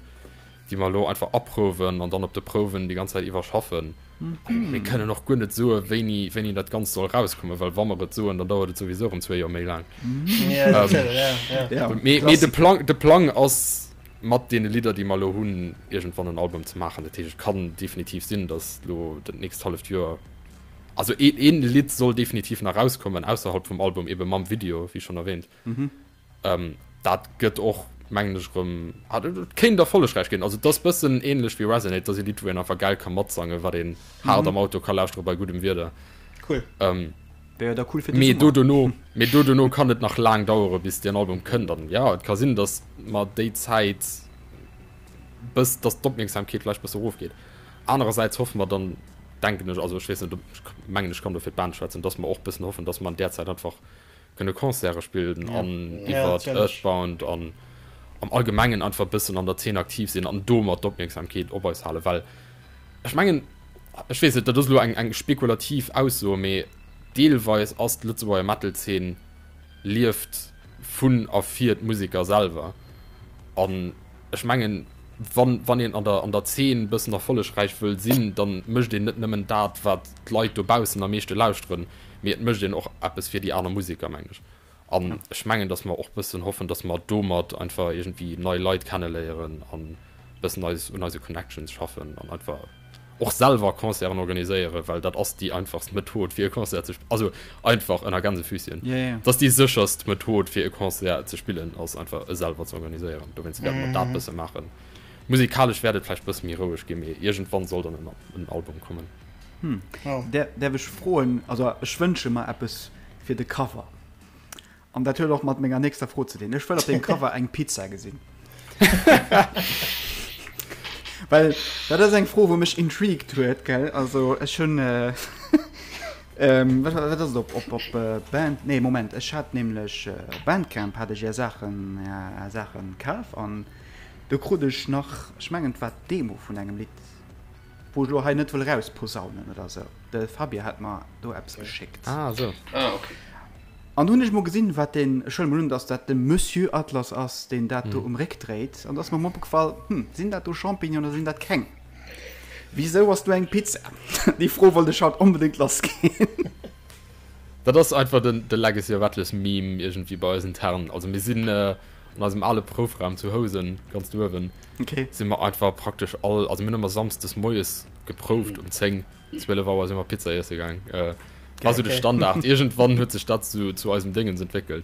[SPEAKER 3] déi mer elo einfach aprouwen an dann op de Prouwen déi ganz Zäit iwwer schaffen. Mir kënnen och guer net soe wéini, wéini dat Ganzt soll erauskommen, well wa mer et soen, dann dauert et souwisou erëm zwee Joer méi laang. Mee, mee de Plang, de Plang ass mat deene Lidder, déi mer elo hunn, iergendwann en Album ze maachen. Dat heescht, et kann definitiv sinn, datt elo dat nächst halleft Joer, also een, een Lidd soll definitiv nach erauskommen, ausserhalb vum Album, ebe mam Video, wéi schonn erwähnt. Dat gëtt och, mengen ech, erëm, ah, dat kéint erfollegräich ginn. Also et ass bëssen ähnlech wéi Resonate, et ass e Lidd, wou een einfach gäil ka matsangen, wat een haart am Auto ka lauschtere bei guddem Wieder.
[SPEAKER 1] Cool.
[SPEAKER 4] Wär jo da cool fir
[SPEAKER 3] de Mee do dono, mee do dono kann et nach laang dauere bis deen Album kënnt an ja, et ka sinn, datt mer déi Zäit bëss, datt d'Opmierksamkeet vläicht bësse erofgeet. Anerersäits hoffe mer dann, denken ech, also ech weess net, ob, ech mengen ech kann do fir d'Band schwätzen, datt mer och bëssen hoffen, datt mer an där Zäit einfach kënne Concerte spillen an iwwer Earthbound an am Allgemengen einfach bëssen an der Zeen aktiv sinn an domat d'Opmierksamkeet op eis halen, well ech mengen, ech weess net, dat ass elo eng eng spekulativ Ausso, mee deelweis ass d'Lëtzebuerger Metal-Zeen lieft vun a fir d'Museker selwer. An ech mengen, wann wann een an der an der Zeen bëssen erfollegräich wëll sinn, da mécht een net nëmmen dat, wat d'Leit dobaussen am meeschte lauschteren, mee et mécht een och eppes fir déi aner Museker, mengen ech. An ech mengen, datt mer och bëssen hoffen, datt mer domat einfach iergendwéi nei Leit kenneléieren an bëssen eis un eise Connections schaffen an einfach och selwer Concerten organiséieren, well dat ass déi einfachst Method fir e Concert ze also einfach ënner Gänsefüßchen, dat ass déi sécherst Method fir e Concert ze spillen, ass einfach e selwer ze organiséieren. Dowéinst wäerte mer dat bësse maachen. Musikalesch wäert et vläicht bësse méi roueg ginn, mee iergendwann soll dann en Album kommen.
[SPEAKER 4] Däerf ech froen, also ech wënsche mer eppes fir de Cover. An dat huet och mat menger nächster Fro ze dinn. Ech wëll op deem Cover eng Pizza gesinn. Well dat ass eng Fro, wou mech intrigued huet, gell? Also ech hunn äh, ähm, wat, wat ass et op, op, op äh, Band, nee Moment, ech hat nämlech äh, op Bandcamp hat ech är Saachen, är Saachen kaf an do krut ech nach, ech mengen et war d'Demo vun engem Lidd, Wou ech elo hei net wëll rausposaunen oder sou. De Fabien hat mer do eppes geschéckt.
[SPEAKER 3] Ah, sou.
[SPEAKER 2] Ah, okay.
[SPEAKER 4] An do hunn ech mol gesinn, wat deen, ech huele mol un, dass dat de Monsieur Atlas ass, deen dat do um Réck dréit. An do ass mer mol opgefall, Hm, sinn dat do Champignonen oder sinn dat keng? Wisou ass do eng Pizza? Déi Fro wollt ech haut onbedéngt lassginn.
[SPEAKER 3] Dat ass einfach den de Legacy of Atlas Meme iergendwéi bei eis intern. Also mir sinn an eisem ale Proufraum zu Housen, ganz do uewen,
[SPEAKER 4] okay.
[SPEAKER 3] si mer einfach praktesch all, also mir hunn ëmmer samsdes moies geprouft um 10, 12 Auer si mer Pizza iesse gaang. Äh, war sou de Standard. Iergendwann huet sech dat zu, zu eisem Déngens entwéckelt.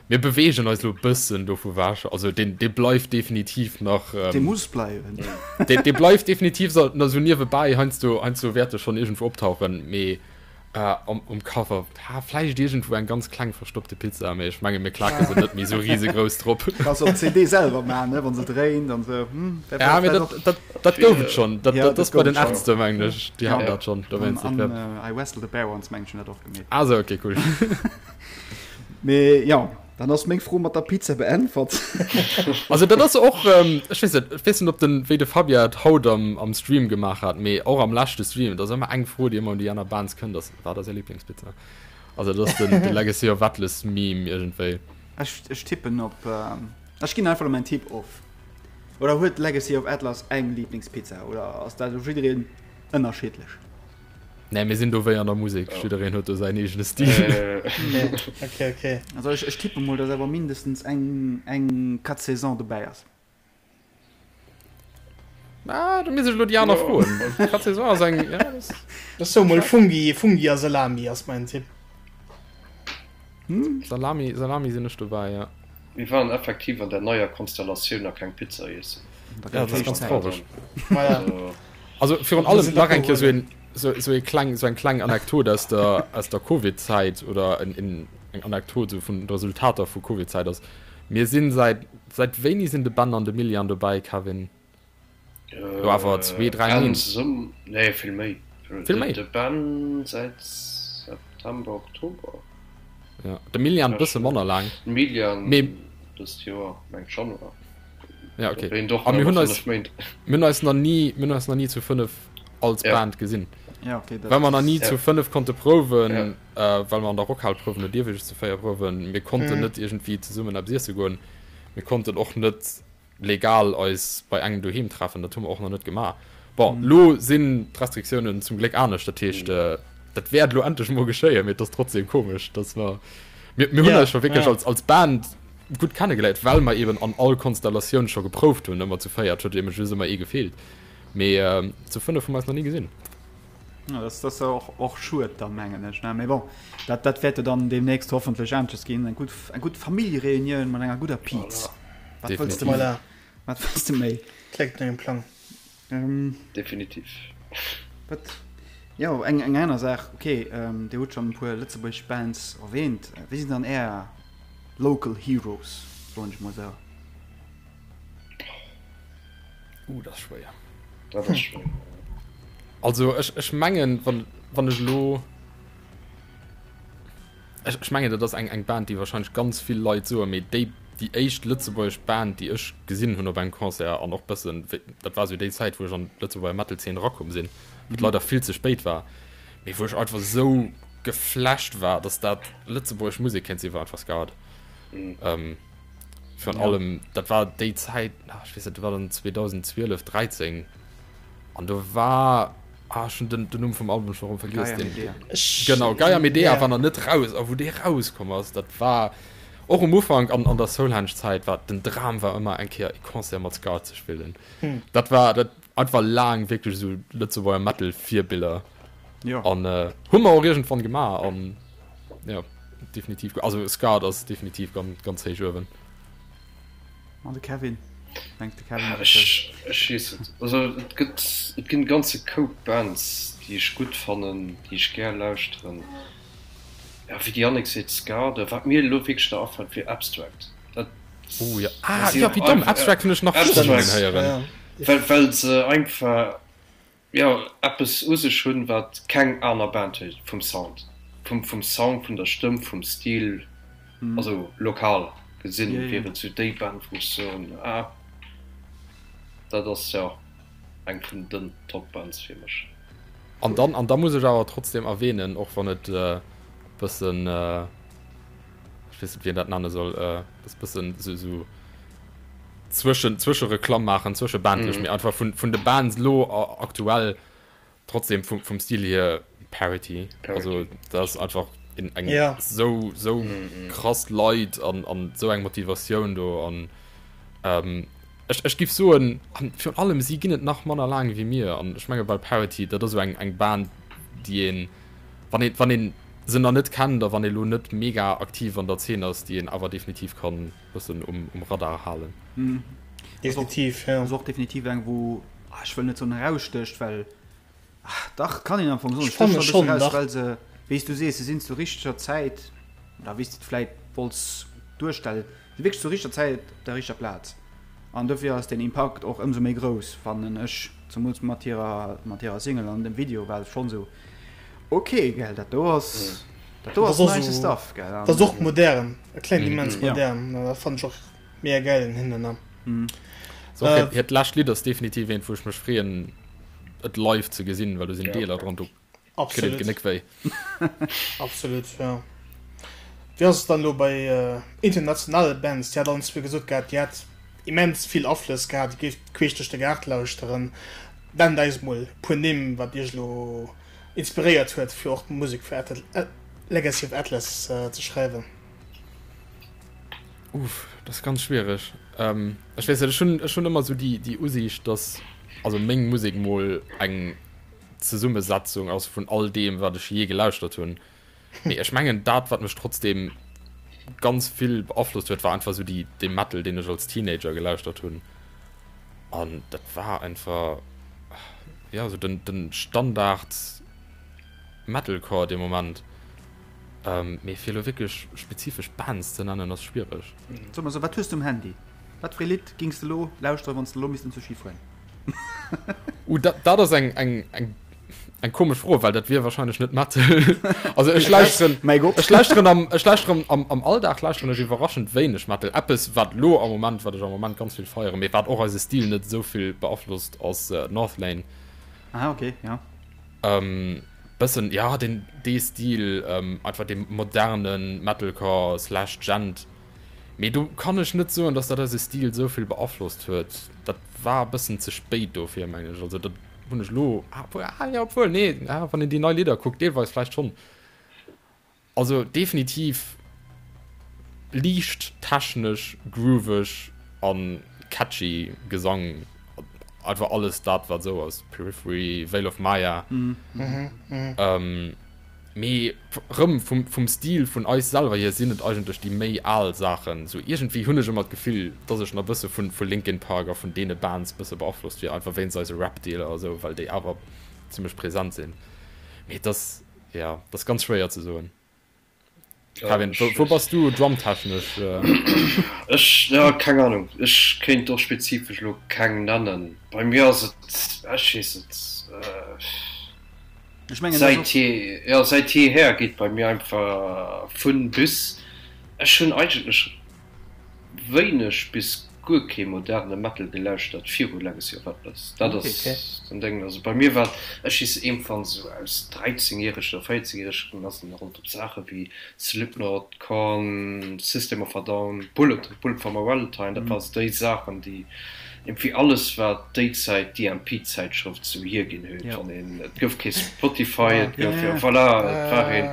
[SPEAKER 3] Mir beweegen eis lo bëssen dovu wech. Also deen, dee bleift definitiv nach.
[SPEAKER 4] Ähm, dee muss bleiwen.
[SPEAKER 3] Dee, dee bleift definitiv so, na, so niewebäi, heiansdo, heiansdo wäert e schonn iergendwou optauchen, mee Um Cover, ha vläicht iergendwou eng ganz kleng verstoppte Pizza, mee ech menge mir klake se net méi sou risegrouss drop.
[SPEAKER 4] Kanns op d'CD selwer maachen, ne, wann se dréint an sou. Hm,
[SPEAKER 3] dat Ja, mee dat, dat, dat gouf et schonn. Dat, ja, dat ass bei den Ärzte, mengen ech. Déi haten dat schonn.
[SPEAKER 4] Dowéinst, dat wär. An I Wrestled a Bear Once, mengen ech, hunn dat och
[SPEAKER 3] gemeet. Ah sou, okay, cool.
[SPEAKER 4] Mee jo. Dann ass meng Fro mat der Pizza beäntwert.
[SPEAKER 3] Also dat ass och, ech weess net, ech weess net ob den, wéi de Fabien et haut am am Stream gemaach hat, mee och am leschte Stream, et ass ëmmer eng Fro déi ëmmer un déi aner Bands kënnt, ass, wat ass är Lieblingspizza? Also dat ass den de Legacy of Atlas Meme iergendwéi.
[SPEAKER 4] Ech ech tippen op, ech ginn einfach elo mäin Tipp of. Oder huet Legacy of Atlas eng Lieblingspizza oder ass dat u jiddereen ënnerschiddlech?
[SPEAKER 3] Nee, mir sinn do wéi an der Musek, jiddereen huet do säin eegene Stil.
[SPEAKER 1] Okay, okay.
[SPEAKER 4] Also ech, ech tippe mol, dass awer mindestens eng, eng 4 Saisons dobäi ass.
[SPEAKER 3] Ah, do misst ech elo déi aner froen. 4 Saisons ass eng, ja, das.
[SPEAKER 1] Ech soe mol Fungi, Fungi a Salami ass mäin Tipp.
[SPEAKER 3] Salami, Salami sinn ech dobäi, ja.
[SPEAKER 2] Mir waren effektiv an der neier Konstellatioun nach keng Pizza iessen.
[SPEAKER 3] Ja, dat ass ganz traureg. Also virun allem nach eng Kéier sou een, sou ee kleng, sou eng kleng Anekdot aus der, aus der Covid-Zäit oder en, en, eng Anekdot sou vun Resultater vu Covid-Zäit ass, mir sinn säit, säit wéini sinn de Ben an de Milian dobäi, Kevin? Lo awer zwee, dräi Méint.
[SPEAKER 2] Nee, vill méi.
[SPEAKER 3] Vill méi?
[SPEAKER 2] De Ben säit September, Oktober.
[SPEAKER 3] Ja, de Milian bësse manner laang.
[SPEAKER 2] De Milian dëst Joer, mengt Januar.
[SPEAKER 3] Ja, okay. A mir hunn eis, mir hunn eis nach ni, mir hunn eis nach ni zu 5 als Band gesinn.
[SPEAKER 4] Ja, okay,
[SPEAKER 3] dat Well mer nach ni zu 5 konnte prouwen, well mer an der Rockhal prouwen, do dierf ee just zu 4 prouwen. Mir konnten net iergendwéi zesummen eppes iesse goen. Mir konnten och net legal eis bei engem doheem treffen, dat hu mer och nach net gemaach. Bon, lo sinn d'Restriktiounen zum Gléck anescht, dat heescht, dat wäert elo endlech emol geschéien, mee et ass trotzdem komesch, dass mer, mir, mir hunn eis scho wierklech als, als Band gutt kennegeléiert, well mer eben an all Konstellatioun scho geprouft hunn, ëmmer zu véiert, huet eben just ëmmer ee gefeelt, mee zu fënnef hu mer eis nach ni gesinn.
[SPEAKER 4] Ja, das, das ass och, och schued da mengen ech, ne? Mee bon, dat, dat wäert jo dann deemnächst hoffentlech aneschters ginn, eng gutt, eng gutt Familljereunioun mat enger gudder Piz. Wat wëlls de
[SPEAKER 1] Voilà.
[SPEAKER 4] Wat wëlls de méi?
[SPEAKER 1] Kléngt no engem Plang.
[SPEAKER 4] Ähm,
[SPEAKER 2] Definitiv.
[SPEAKER 4] Wat, jo, eng, eng aner Saach, okay, ähm, Dir hutt schonn e puer lëtzebuergesch Bands erwähnt. Wie sinn dann Är local heroes, soen ech mol esou?
[SPEAKER 3] Uh, dat ass schwéier.
[SPEAKER 2] Dat ass schwéier.
[SPEAKER 3] Also ech, ech mengen, wann, wann ech elo. Ech, ech mengen, dat ass eng, eng Band, déi wahrscheinlech ganz vill Leit soen, mee déi, déi éischt lëtzebuergesch Band, déi ech gesinn hunn op engem Concert an och bëssen, dat war esou déi Zäit, wou ech an d'Lëtzebuerger Metal-Zeen erakomm sinn, wat leider vill ze spéit war, mee wou ech einfach esou geflasht war, dass dat lëtzebuergesch Musek kéint sinn, war einfach Scarred. Ähm, Virun allem, dat war déi Zäit, ech weess net, dat war dann 2012, 13 an do war, ah, ech hunn den, den Numm vum Album scho rëm vergiess.
[SPEAKER 4] Gaia Medea.
[SPEAKER 3] Genau, Gaia Medea war nach net raus a wou dee rauskomm ass, dat war och um Ufank an, an der Soulhenge-Zäit war den Dram war ëmmer eng Kéier e Concert mat Scarred ze spillen. Dat war dat einfach laang wierklech esou Lëtzebuerger Metal-Virbiller.
[SPEAKER 4] Jo.
[SPEAKER 3] An hu mer och iergendwann gemaach an jo. Definitiv, also Scarred ass definitiv ganz, ganz héich uewen.
[SPEAKER 4] An de Kevin? Mengt de Kevin
[SPEAKER 2] ah, ech, ech weess et. Also et gëtt et ginn ganze Koup Bands, déi ech gutt fannen, déi ech gär lauschteren. Ja, wéi de Yannick seet, Scarred, wat mir elo wierklech nach afält, wier Abstract. Dat,
[SPEAKER 3] oh ja, ah, ja, wéi domm, Abstract hunn ech nach
[SPEAKER 2] Abstract,
[SPEAKER 3] héieren.
[SPEAKER 2] Well, well se einfach jo eppes u sech hunn, wat keng aner Band huet, vum Sound, vum vum Sound, vun der Stëmm, vum Stil, also lokal gesinn wier et sou déi Band wou ech soen, ah dat ass jo eng vun den Top Bands fir mech.
[SPEAKER 3] An dann an da muss ech awer trotzdem erwähnen, och wann et e bëssen, ech weess net wéi een dat nenne soll, e bëssen sou sou Zwëschen, Zwëschereklamm maachen, zwëschebandlech, mee einfach vun, vun de Bands lo aktuell trotzdem vum, vum Stil hier Parity. Also dat ass einfach in, eng
[SPEAKER 1] Ja.
[SPEAKER 3] sou, sou krass Leit an, an sou eng Motivatioun do an ähm, ech, ech giff soen, an virun allem si ginn et nach manner laang wéi mir an ech menge bei Parity, dat ass sou eng, eng Band déi een, wann een, wann een se nach net kennt a wann ee lo net mega aktiv an der Zeen ass, déi een awer definitiv kann bëssen um, um Radar halen.
[SPEAKER 4] Mm.
[SPEAKER 1] Definitiv, ja.
[SPEAKER 4] Ass och definitiv eng, wou, ah, ech wëll net soen erausstécht, well, ah, dach, kann een am Fong soen,
[SPEAKER 1] Ech fanne
[SPEAKER 4] stécht
[SPEAKER 1] schon,
[SPEAKER 4] eraus,
[SPEAKER 1] dach.
[SPEAKER 4] well se, wéi s du sees, se sinn zur richteger Zäit, oder wéi s de et vläit wollts duerstellen, si wierklech zur richteger Zäit op der richteger Plaz. An dofir ass den Impakt och ëmsou méi grouss, fannen ech, zemools mat hirer, mat hirer Single an dem Video war et schonn esou, ok, gell, dat do ass, dat do
[SPEAKER 1] Dat
[SPEAKER 4] ass
[SPEAKER 1] ass och
[SPEAKER 4] nice
[SPEAKER 1] esou,
[SPEAKER 4] Stuff, gell.
[SPEAKER 1] dat ass och modern, e klengt immens
[SPEAKER 4] Ja.
[SPEAKER 1] modern, dat fannen ech och mega gäil un hinnen, ne.
[SPEAKER 3] So,
[SPEAKER 1] Äh,
[SPEAKER 3] hiert lescht Lidd ass definitiv eent, wou ech mech freeën, et live ze gesinn, well do sinn
[SPEAKER 2] Ja.
[SPEAKER 3] Deeler dran, do kritt een
[SPEAKER 1] Absolut.
[SPEAKER 3] d'Genéck wéi.
[SPEAKER 1] Absolut, ja. Wéi ass et dann elo bei internationale Bands? Dir hat allen zwee gesot gehat, Dir hätt immens vill Aflëss gehat, Dir géift queesch duerch de Gaart lauschteren. Nennt eis mol e puer Nimm, wat Iech elo. inspiréiert huet fir och d'Musek fir Legacy of Atlas ze schreiwen?
[SPEAKER 3] Uff, dat ass ganz schwiereg. Ech weess net, ech hunn, ech hunn ëmmer esou déi, déi Usiicht, dass also meng Musek mol eng Zesummesetzung ass vun all deem, wat ech jee gelauschtert hunn. Mee ech mengen, dat, wat mech trotzdeem ganz vill beaflosst huet, war einfach esou déi, dee Metal, deen ech als Teenager gelauschtert hunn. An dat war einfach, jo, esou den, den Standard Metalcore dee Moment. Mee fir elo wierklech spezifesch Bands ze nennen, ass schwiereg.
[SPEAKER 4] Soe mer esou, wat hues de um Handy? Wat fir ee Lidd gings de elo lauschteren, wann s de elo misst enzou Ski fueren?
[SPEAKER 3] Uh, dat, dat ass eng, eng, eng, eng komesch Fro, well dat wier wahrscheinlech net Metal. Also ech lauschteren,
[SPEAKER 4] Mäi Gott.
[SPEAKER 3] ech lauschteren am, ech lauschteren am, am Alldag lauschteren ech iwwerraschend wéineg Metal. Eppes, wat lo am Moment, wat ech am Moment ganz vill feieren, mee wat och eise Stil net esou vill beaflosst, ass äh, Northlane.
[SPEAKER 4] Ah, okay, ja.
[SPEAKER 3] Ähm, bëssen, ja, den, dee Stil, ähm, einfach dee modernen Metalcore slash Djent. Mee do kann ech net soen, dass dat eise Stil esou vill beaflosst huet. Dat war e bëssen ze spéit dofir, mengen ech. Also dat hunn ech elo, ah, ah jo, obwuel, nee, ah, wann een déi nei Lidder kuckt, deelweis vläicht schonn. Also definitiv liicht technesch, grooveg a catchy Gesang. Einfach alles dat, wat esou ass, Periphery, Veil of Maya. Mee rëm vum, vum Stil vun eis selwer hier sinn et eigentlech déi méi al Saachen. Sou iergendwéi hunn ech ëmmer d'Gefill, dass ech nach bësse vun, vu Linkin Park a vun deene Bands bësse beaflosst wier, einfach wéinst eise Rap-Deeler a sou, well déi awer zimlech present sinn. Mee et ass, jo, et ass ganz schwéier ze soen. Kevin, wou, wou bass du drumtechnesch?
[SPEAKER 2] Ech, jo, keng Ahnung. Ech kéint och spezifesch elo keng nennen. Bei mir ass et, ech weess net.
[SPEAKER 4] Ech mengen, dat ass
[SPEAKER 2] Säit je, jo, säit jeeher geet bei mir einfach vun bis. Ech hunn eigentlech wéineg bis guer kee moderne Metal gelauschtert viru Legacy of Atlas. Dat ass den Déng. Also bei mir war, ech weess iergendwann esou aus 13 järegen oder 14 järegen ass en halt op Saache wéi Slipknot, Korn, System of a Down, Bullet, Bullet for my Valentine, dat war sou déi Saachen déi Iergendwéi alles wat déi Zäit d'EMP-Zäitschrëft sou hierginn huet, wann een, et gouf kee Spotify, et gouf, jo voilà, et war een,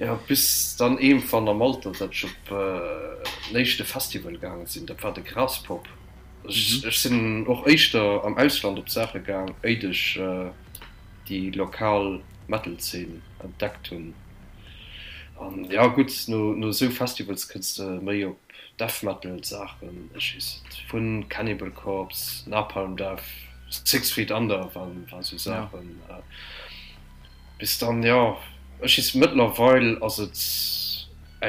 [SPEAKER 2] jo bis dann iergendwann am Alter, datt ech op den éischte Festival gaange sinn, dat war de Graspop. Ech, ech sinn och éischter am Ausland op Saache gaang, éit ech déi lokal Metal-Zeen entdeckt hunn. An jo gutt, no, no esou Festivals kënns de méi op Death Metal Saachen, ech weess net, vun Cannibal Corpse, Napalm Death, Six Feet Under waren sou Saachen, bis dann, jo, ech weess, mëttlerweil ass et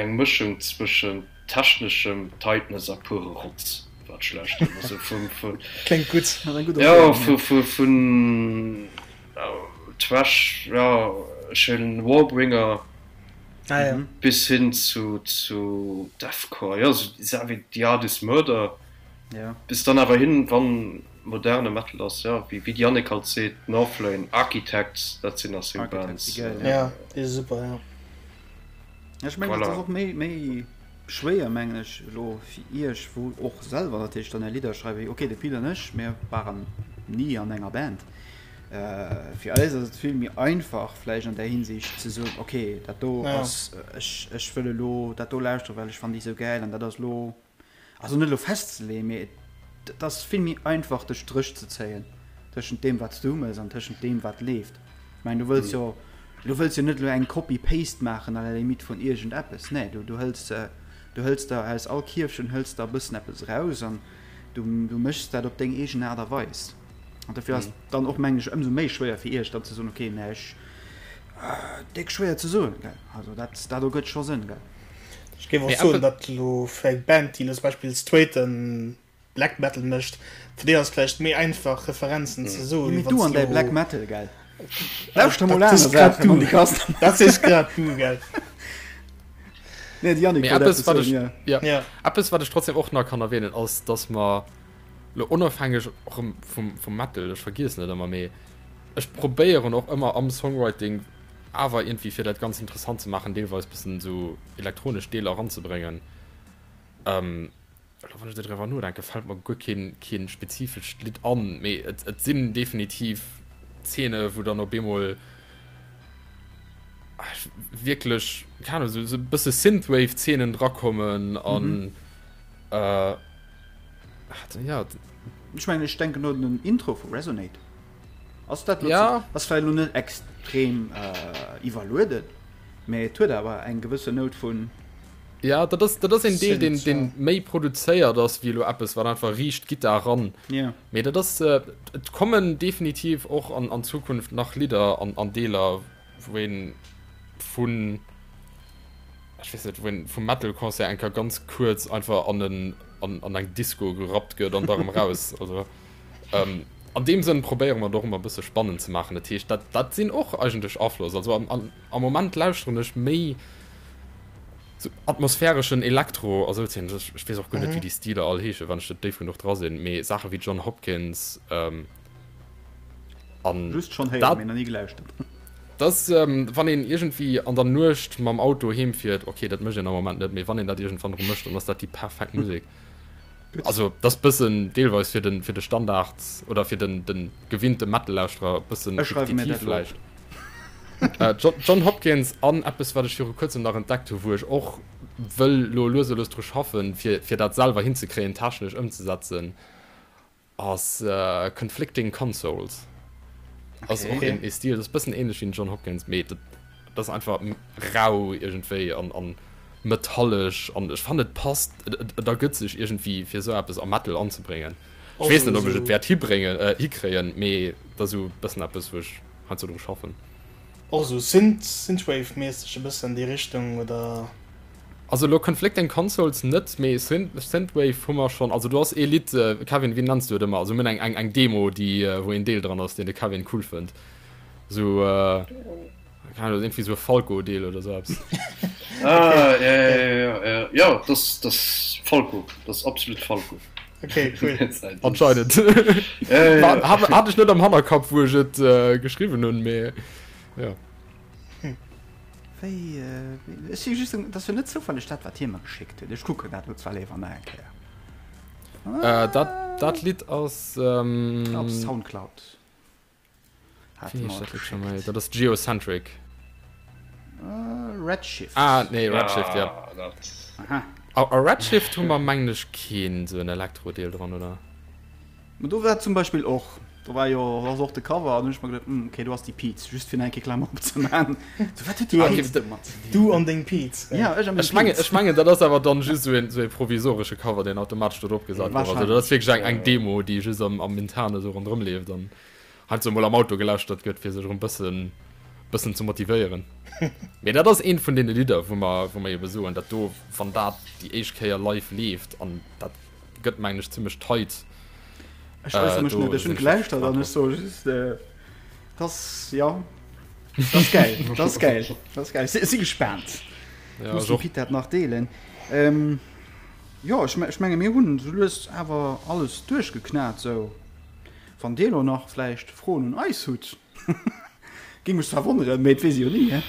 [SPEAKER 2] eng Mëschung zwëschent techneschem Tightness a pure Rotz, wat ech lauschteren, also vun, vun,
[SPEAKER 1] Kléngt gutt.
[SPEAKER 2] jo, vu, vu, vun Thrash, jo, ech hunn Warbringer.
[SPEAKER 1] Ah, ja.
[SPEAKER 2] Bis hin zu, zu Deathcore, jo, sou Saach wéi The Art Is Murder.
[SPEAKER 4] Ja.
[SPEAKER 2] Bis dann awer hin, wann moderne Metal ass, jo, wéi, wéi d'Yannick halt seet, Northlane, Architects, dat sinn nach seng
[SPEAKER 4] Architects
[SPEAKER 2] Bands.
[SPEAKER 4] si gäil, ja.
[SPEAKER 1] Ja, déi si super, ja.
[SPEAKER 4] Ja, ech mengen, dat
[SPEAKER 2] Voilà.
[SPEAKER 4] ass och méi, méi schwéier, mengen ech, elo fir iech, wou och selwer natierlech dann är Lidder schreiwen. Okay, de Pil an ech, mir waren ni an enger Band. Fir eis ass et vill méi einfach vläicht an där Hinsicht ze soen, okay, dat do ass, ech, ech wëll elo dat do lauschteren, well ech fannen déi esou gäil an dat ass elo, also net elo festzeleeën, mee et ass vill méi einfach de Stréch ze zéien tëschent deem wat s du mëss an tëschent deem wat leeft. Ech mengen du wëlls jo, du wëlls jo net elo eng Copy-Paste maachen à la limite vun iergendeppes, nee, du, du hëls, du hëls der aus all Kierfchen hëls der e bëssen eppes eraus an du, du méchs dat op deng eegen Aart a Weis. An dofir ass dann och mengen ech ëmsou méi schwéier fir iech dann ze soen, okay, mä ech, déck schwéier ze soen, gell. Also dat, dat ergëtt scho Sënn, gell.
[SPEAKER 1] Ech géif och soen, datt elo fir eng Band, déi elo zum Beispill straighte Black Metal mécht, fir déi ass et vläicht méi einfach Referenzen ze soen,
[SPEAKER 4] Mee
[SPEAKER 1] wéi
[SPEAKER 4] du
[SPEAKER 1] wann
[SPEAKER 4] an
[SPEAKER 1] s
[SPEAKER 4] däi
[SPEAKER 1] elo.
[SPEAKER 4] Black Metal, gell. Lauschter mol
[SPEAKER 1] Dat
[SPEAKER 4] aner
[SPEAKER 1] sees grad
[SPEAKER 4] Saachen
[SPEAKER 1] du.
[SPEAKER 4] an déi Kast.
[SPEAKER 1] Dat sees grad du, gell.
[SPEAKER 4] Nee, de Yannick
[SPEAKER 3] Mee
[SPEAKER 4] wollt
[SPEAKER 3] eppes,
[SPEAKER 4] eppes
[SPEAKER 3] wat
[SPEAKER 4] soen,
[SPEAKER 3] ech,
[SPEAKER 4] jo.
[SPEAKER 3] ja,
[SPEAKER 1] Ja.
[SPEAKER 3] eppes, wat ech trotzdem och nach kann erwähnen, ass, datt mer Lo onofhängeg och erëm vum, vum Metal, ech vergiessen et ëmmer, mee ech probéieren och ëmmer am Songwriting awer iergendwéi fir dat Ganzt interessant ze maachen, deelweis bëssen esou elektronesch Deeler eranzebréngen. Elo wann ech esou driwwer nodenken, fält mer guer keen, keen spezifescht Lidd an, mee et, et sinn definitiv Zeene wou dann op eemol. Wierklech, keng Ahnung, esou e bësse Synthwave-Zeenen drakommen an
[SPEAKER 4] ja. Ech mengen, ech denken un den Intro vu Resonate. Ass dat lo ja. ass vläicht lo net extrem iwwerlueden, mä et huet awer eng gewësse Nout vun.
[SPEAKER 3] Ja, dat ass, dat ass een Deel, deen, deen méi produzéiert ass wéi elo eppes, wat einfach riicht Gittar ran.
[SPEAKER 4] Ja.
[SPEAKER 3] Mee dat ass, et kommen definitiv och an, an Zukunft nach Lidder an, an Deeler, wou een vun, ech weess net, wou een vum Metal-Concert eng Kéier ganz kuerz einfach an en, an, an eng Disco gerappt gëtt an da rëm raus. Also, ähm, an deem Sënn probéiere mer et och ëmmer e bësse spannend ze maachen. Dat heescht, dat, dat sinn och eigentlech Aflëss. Also am, am, am Moment lauschteren ech méi sou atmosphäreschen Elektro a sou Zeen. Ech, ech weess och guer net, wéi déi Stiler all heeschen, wann ech net déif genuch dra sinn, mee Saache wéi Jon Hopkins, ähm,
[SPEAKER 4] an Just schonn héieren, dat, mee nach ni gelauschtert.
[SPEAKER 3] Dass, wann een iergendwéi an der Nuecht mam Auto heem fiert, ok, dat mécht een am Moment net, mee wann een dat iergendwann erëm mécht, dann ass dat déi perfekt Musek. Also dat ass bëssen deelweis fir den, fir de Standard oder fir den, den gewinnte Metal-Lauschterer e bëssen
[SPEAKER 4] Ech schreiwe mir dat elo op.
[SPEAKER 3] Vläicht. Jon Hopkins an eppes wat ech viru kuerzem nach entdeckt hu wou ech och wëll lo lues a lues dru schaffen, fir, fir dat selwer hinzekréien, technesch ëmzesetzen, Ass Conflicting Consoles. Ass och een ee Stil, ass bëssen ähnlech wéi den Jon Hopkins, mee dat ass einfach rau iergendwéi an an metallesch an ech fannen et passt, et et ergëtt sech iergendwéi fir esou eppes am Metal anzebréngen. Ech weess net ob ech et wäert hibréngen, hikréien, mee et ass esou bëssen eppes wou ech heiansdo dru schaffen.
[SPEAKER 1] Och esou Synth, Synthwave-mässeg e bëssen an déi Richtung, oder?
[SPEAKER 3] Also elo Conflicting Consoles net, mee Synthwave hu mer schonn. Also do ass ee Lidd, Kevin, wéi nenns du et ëmmer? Also mir hunn eng, eng, eng Demo, déi, wou een Deel dran ass, deen de Kevin cool fënnt. Esou, keng Ahnung, iergendwéi esou e Falco-Deel oder esou eppes.
[SPEAKER 2] Ah, ja, ja, ja, ja, ja, das, das Falco, das absolut Falco.
[SPEAKER 1] Okay, cool.
[SPEAKER 3] Anscheinend. Ja, ja, ja. Hat ech net am Hannerkapp, wou ech et geschriwwen hunn, mee jo.
[SPEAKER 4] Wéi, ech si just, dat ass jo net zoufälleg dat, wat hie mer geschéckt huet. Ech kucken dat elo zwar léiwer nach eng Kéier.
[SPEAKER 3] Dat, dat Lidd ass.
[SPEAKER 4] Op Soundcloud
[SPEAKER 3] hat e mer et geschéckt. Dat ass Geocentric.
[SPEAKER 4] Redshift.
[SPEAKER 3] Ah, nee, Redshift, ja. Aha. A Redshift hu mer, mengen ech, keen esou en Elektro-Deel dran, oder?
[SPEAKER 4] Ma do war zum Beispill och, do war jo ass och de Cover an hunn ech mer geduet, hm, okay, do ass déi Piz, just fir nach eng Kéier Klammer opzemaachen. So, wat huet déi Piz domat ze
[SPEAKER 1] dinn? Du an deng Piz.
[SPEAKER 4] Ja, ech a meng
[SPEAKER 3] Ech mengen, ech mengen, dat ass awer dann just esou een, esou ee provisoresche Cover, deen automatesch do drop gesat gouf. Also dat ass wierklech eng, eng Demo, déi just am, am Interne esou ronderëm leeft an heiansdo emol am Auto gelauschtert gëtt, fir sech erëm bëssen, bëssen ze motivéieren. Mee dat ass eent vun deene Lidder, wou mer, wou mer ebe soen, dat do, wann dat déi éischt Kéier live leeft an dat gëtt mengen ech zimmlech tight.
[SPEAKER 4] Ech äussere mech net, ech hunn gelauschtert an ech soe just, dass, jo, dat ass gäil, dat ass gäil, dat ass gäil. Ech si gespaant.
[SPEAKER 3] Ja,
[SPEAKER 4] Muss dem Pit dat nach deelen. Jo, ech ech menge mir hunn esou lues awer alles duerchgeknat esou. Wann Dir elo nach vläicht Froen un eis hutt, géing mech zwar wonneren, mee et weess ee jo ni, he.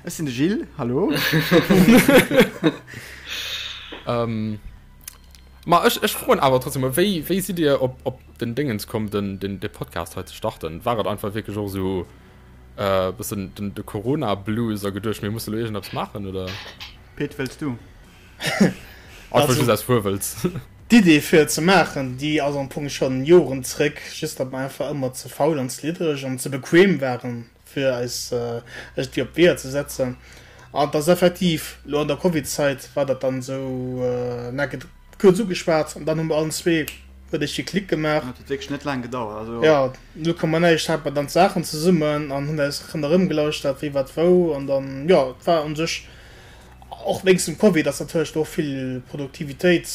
[SPEAKER 4] Ech sinn de Gilles, hallo.
[SPEAKER 3] Ähm, ma ech, ech froen awer trotzdem mol, wéi, wéi sidd Dir op, op den Dingens komm, den, den, de Podcast hei ze starten? War et einfach wierklech och esou äh, bëssen den, de Corona-Blues a geduecht, mir musse lo iergendeppes maachen, oder?
[SPEAKER 4] Pit, wëlls du?
[SPEAKER 3] Einfach just aus Fuerwëlz.
[SPEAKER 1] D'Idee fir et ze maachen, déi ass am Fong schonn Joren zréck, just datt mer einfach ëmmer ze faul an ze liddereg an ze bequem waren, fir eis iergendwéi op d'Weeër ze setzen. An et ass effektiv elo an der Covid-Zait war dat dann esou neck et kuerz ugeschwat an dann hu mer allen zwee huet iergendwéi Klick gemaach.
[SPEAKER 4] Et huet wierklech net laang gedauert.
[SPEAKER 1] Also. Jo, null Komma näischt hate mer dann d'Saachen zesummen an hunn eis ronderëm gelauschtert, wie wat wou an dann, jo, et war u sech och wéinst dem Covid ass natierlech do och vill Produktivitéit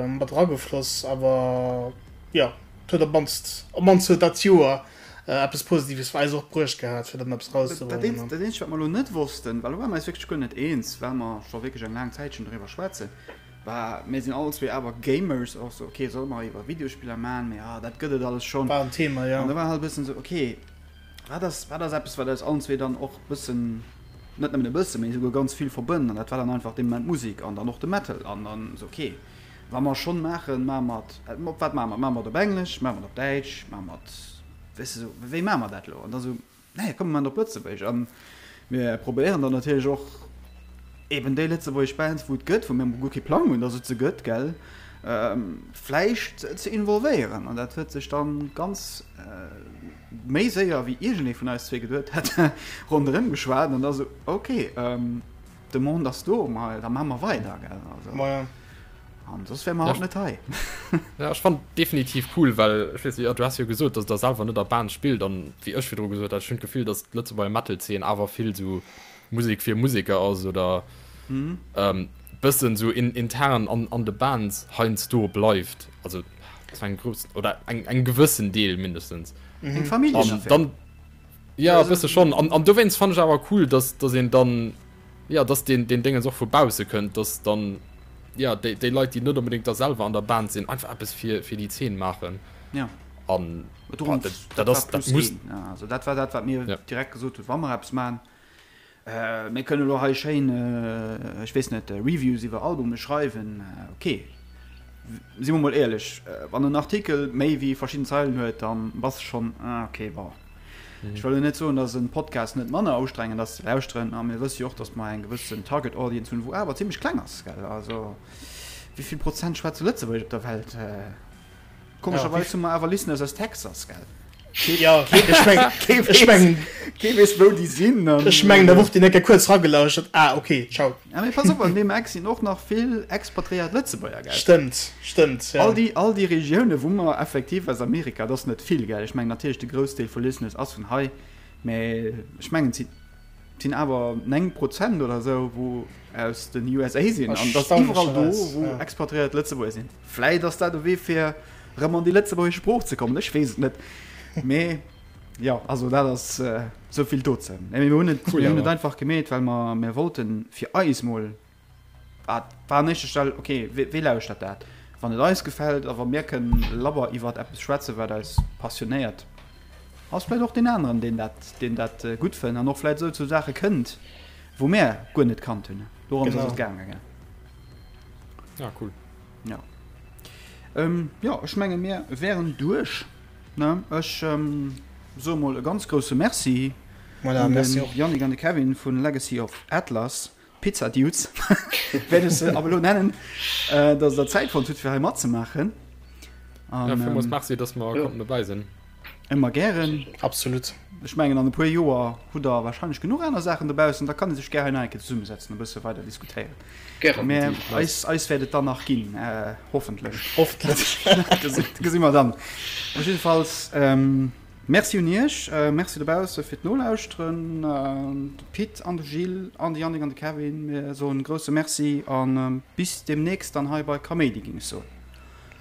[SPEAKER 1] mat eragefloss, awer jo, et huet op d'mannst, op d'mannst huet dat Joer eppes Positives fir eis och bruecht gehat, fir dann eppes
[SPEAKER 4] erauszebréngen. Dat eenzegt, wat mer elo net wossten, well do ware mer eis wierklech guer net eens, well mer scho wierklech eng laang Zäitchen doriwwer schwätzen, war, mir sinn allen zwee awer Gamers, och sou, okay, solle mer iwwer Videospiller maachen, mee ah, dat gëtt et alles schonn.
[SPEAKER 1] War en Thema, jo.
[SPEAKER 4] An da war halt e bëssen sou, okay, wat ass, wat ass eppes, wat eis allen zwee dann och e bëssen, net nëmmen e bëssen, mee esouguer ganz vill verbënnt? An dat war dann einfach dee Moment d'Musek an dann och de Metal. An dann sou, okay, Wa mer schonn maachen, maache mer et, op wat maache mer et? Maache mer et op Englesch, maache mer et op Däitsch, maache mer et, weess de, esou, wéi maache mer dat elo? An da sou, nee, komm, mir maachen et op Lëtzebuergesch. An Mir probéieren dann natierlech och eben déi lëtzebuergesch Bands, wou et gëtt, wou mir emol guer kee Plang hunn, dass et se gëtt, gell, vläicht ze involvéieren. An dat huet sech dann ganz méi séier, wéi iergendee vun eis zwee geduet hätt, ronderëm geschwat. An da sou, ok, d'Demande ass do, ma da maache mer weider, gell. Also.
[SPEAKER 1] Maja.
[SPEAKER 4] An soss wäre mer haut net hei.
[SPEAKER 3] Ja, ech fannen definitiv cool, well ech weess net, du has jo gesot, dass der selwer net a Band spillt an wéi ech virdru gesot hat, ech hunn d'Gefill, dass d'Lëtzebuerger Metal-Zeen awer vill sou Musek fir Museker ass oder bëssen sou intern an an de Bands heiansdo bleift, also zu engem groussen oder eng engem gewëssen Deel mindestens.
[SPEAKER 4] Eng Familljenaffär.
[SPEAKER 3] An dann, ja, e bësse schonn. An an dowéinst fannen ech awer cool, dass dass een dann, Jo, dass deen, deen Déngens och vu bausse kënnt, dass dann, jo, déi, déi Leit, déi net onbedéngt da selwer an der Band sinn, einfach eppes fir, fir déi Zeen maachen.
[SPEAKER 4] Ja.
[SPEAKER 3] An,
[SPEAKER 4] boah, dat, dat ass, dat muss. Ja, also dat war dat, wat mir ja. direkt gesot hunn, wa mer eppes maachen. Äh, mir kënnen elo hei schéin, äh, ech weess net, Reviews iwwer Albume schreiwen, okay. Si mer mol éierlech, wann en Artikel méi wéi verschidden Zeilen huet, dann bass de schonn, ah, okay, bon. Ech wëll elo net soen, dass en Podcast net manner ustrengend ass ze lauschteren, a mir wësse jo och, dass mer eng gewëssen Target Audience hunn, wou awer zimmlech kleng ass, gell? Also, wéi vill Prozent schwätze Lëtzebuergesch op der Welt? Komescherweis hu mer awer Listeners aus Texas, gell?
[SPEAKER 1] Ja, ech meng, ech meng,
[SPEAKER 4] kee weess, wou déi sinn.
[SPEAKER 1] Ech mengen, da wor déi eng Kéier kuerz ragelauschtert, ah, okay, ciao.
[SPEAKER 4] Ja, mee pass op, an deem Eck sinn och nach vill expatriéiert Lëtzebuerger, gell?
[SPEAKER 1] Stëmmt, stëmmt,
[SPEAKER 4] ja. All déi, all déi Regioune wou mer effektiv aus Amerika, et ass net vill, gell? Ech mengen natierlech de Groussdeel vu Listeners ass vun hei, mä ech mengen et sinn, et sinn awer 9 Prozent oder esou wou aus den USA sinn. An et ass iwwerall do wou expatriéiert Lëtzebuerger sinn. Vläit ass dat e Wee fir erëm an déi lëtzebuergesch Sprooch ze kommen, ech weess et net, mä. Jo, also dat ass esou vill dozou. Mee mir hunn et, cool, mir hunn et einfach gemeet, well mer, mir wollten fir eis mol, wat war an éischter Stell, okay, wee, wee lauschtert dat? Wann et eis gefält a wa mir kënnen labber iwwert eppes schwätzen, wat eis passionéiert, ass vläicht och deen aneren, deen dat, deen dat gutt fënnt an och vläicht esou zu Saache kënnt, wou mär guer net kannt hunn. Dorëms ass et gaangen, gell?
[SPEAKER 3] Ja, cool.
[SPEAKER 4] Ja. Ähm, jo, ech menge mir wären duerch. Ne, ech soe mol e ganz grousse Merci
[SPEAKER 1] Voilà,
[SPEAKER 4] un
[SPEAKER 1] merci
[SPEAKER 4] den
[SPEAKER 1] och.
[SPEAKER 4] Yannick an de Kevin vun Legacy of Atlas, Pizza Dudes wäert ech se ab elo nennen, dass der Zäit fonnt hutt fir hei matzemaachen.
[SPEAKER 3] Ja,
[SPEAKER 4] An
[SPEAKER 3] villmools Merci, dass mer konnten dobäi sinn.
[SPEAKER 4] ëmmer gären.
[SPEAKER 1] Absolut.
[SPEAKER 4] Ech mengen an e puer Joer hutt der wahrscheinlech genuch aner Saachen dobaussen, da kann ee sech gär hei nach eng Kéier zesummesetzen, e bësse weider diskutéieren.
[SPEAKER 2] Gären.
[SPEAKER 4] Mä eis, eis wäert et dann nach ginn, hoffentlech.
[SPEAKER 1] Hoffentlech.
[SPEAKER 4] Dat gesi mer dann. Op jiddefalls Merci un Iech, Merci dobausse fir d'Nolauschteren. De Pit an de Gilles an de Yannick an de Kevin, mir soen e grousse Merci a bis deemnächst dann hei bei Kaméidi, géing ech soen.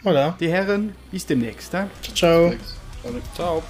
[SPEAKER 1] Voilà.
[SPEAKER 4] Dir Hären, bis deemnächst.
[SPEAKER 1] Ciao, ciao.
[SPEAKER 3] Ciao.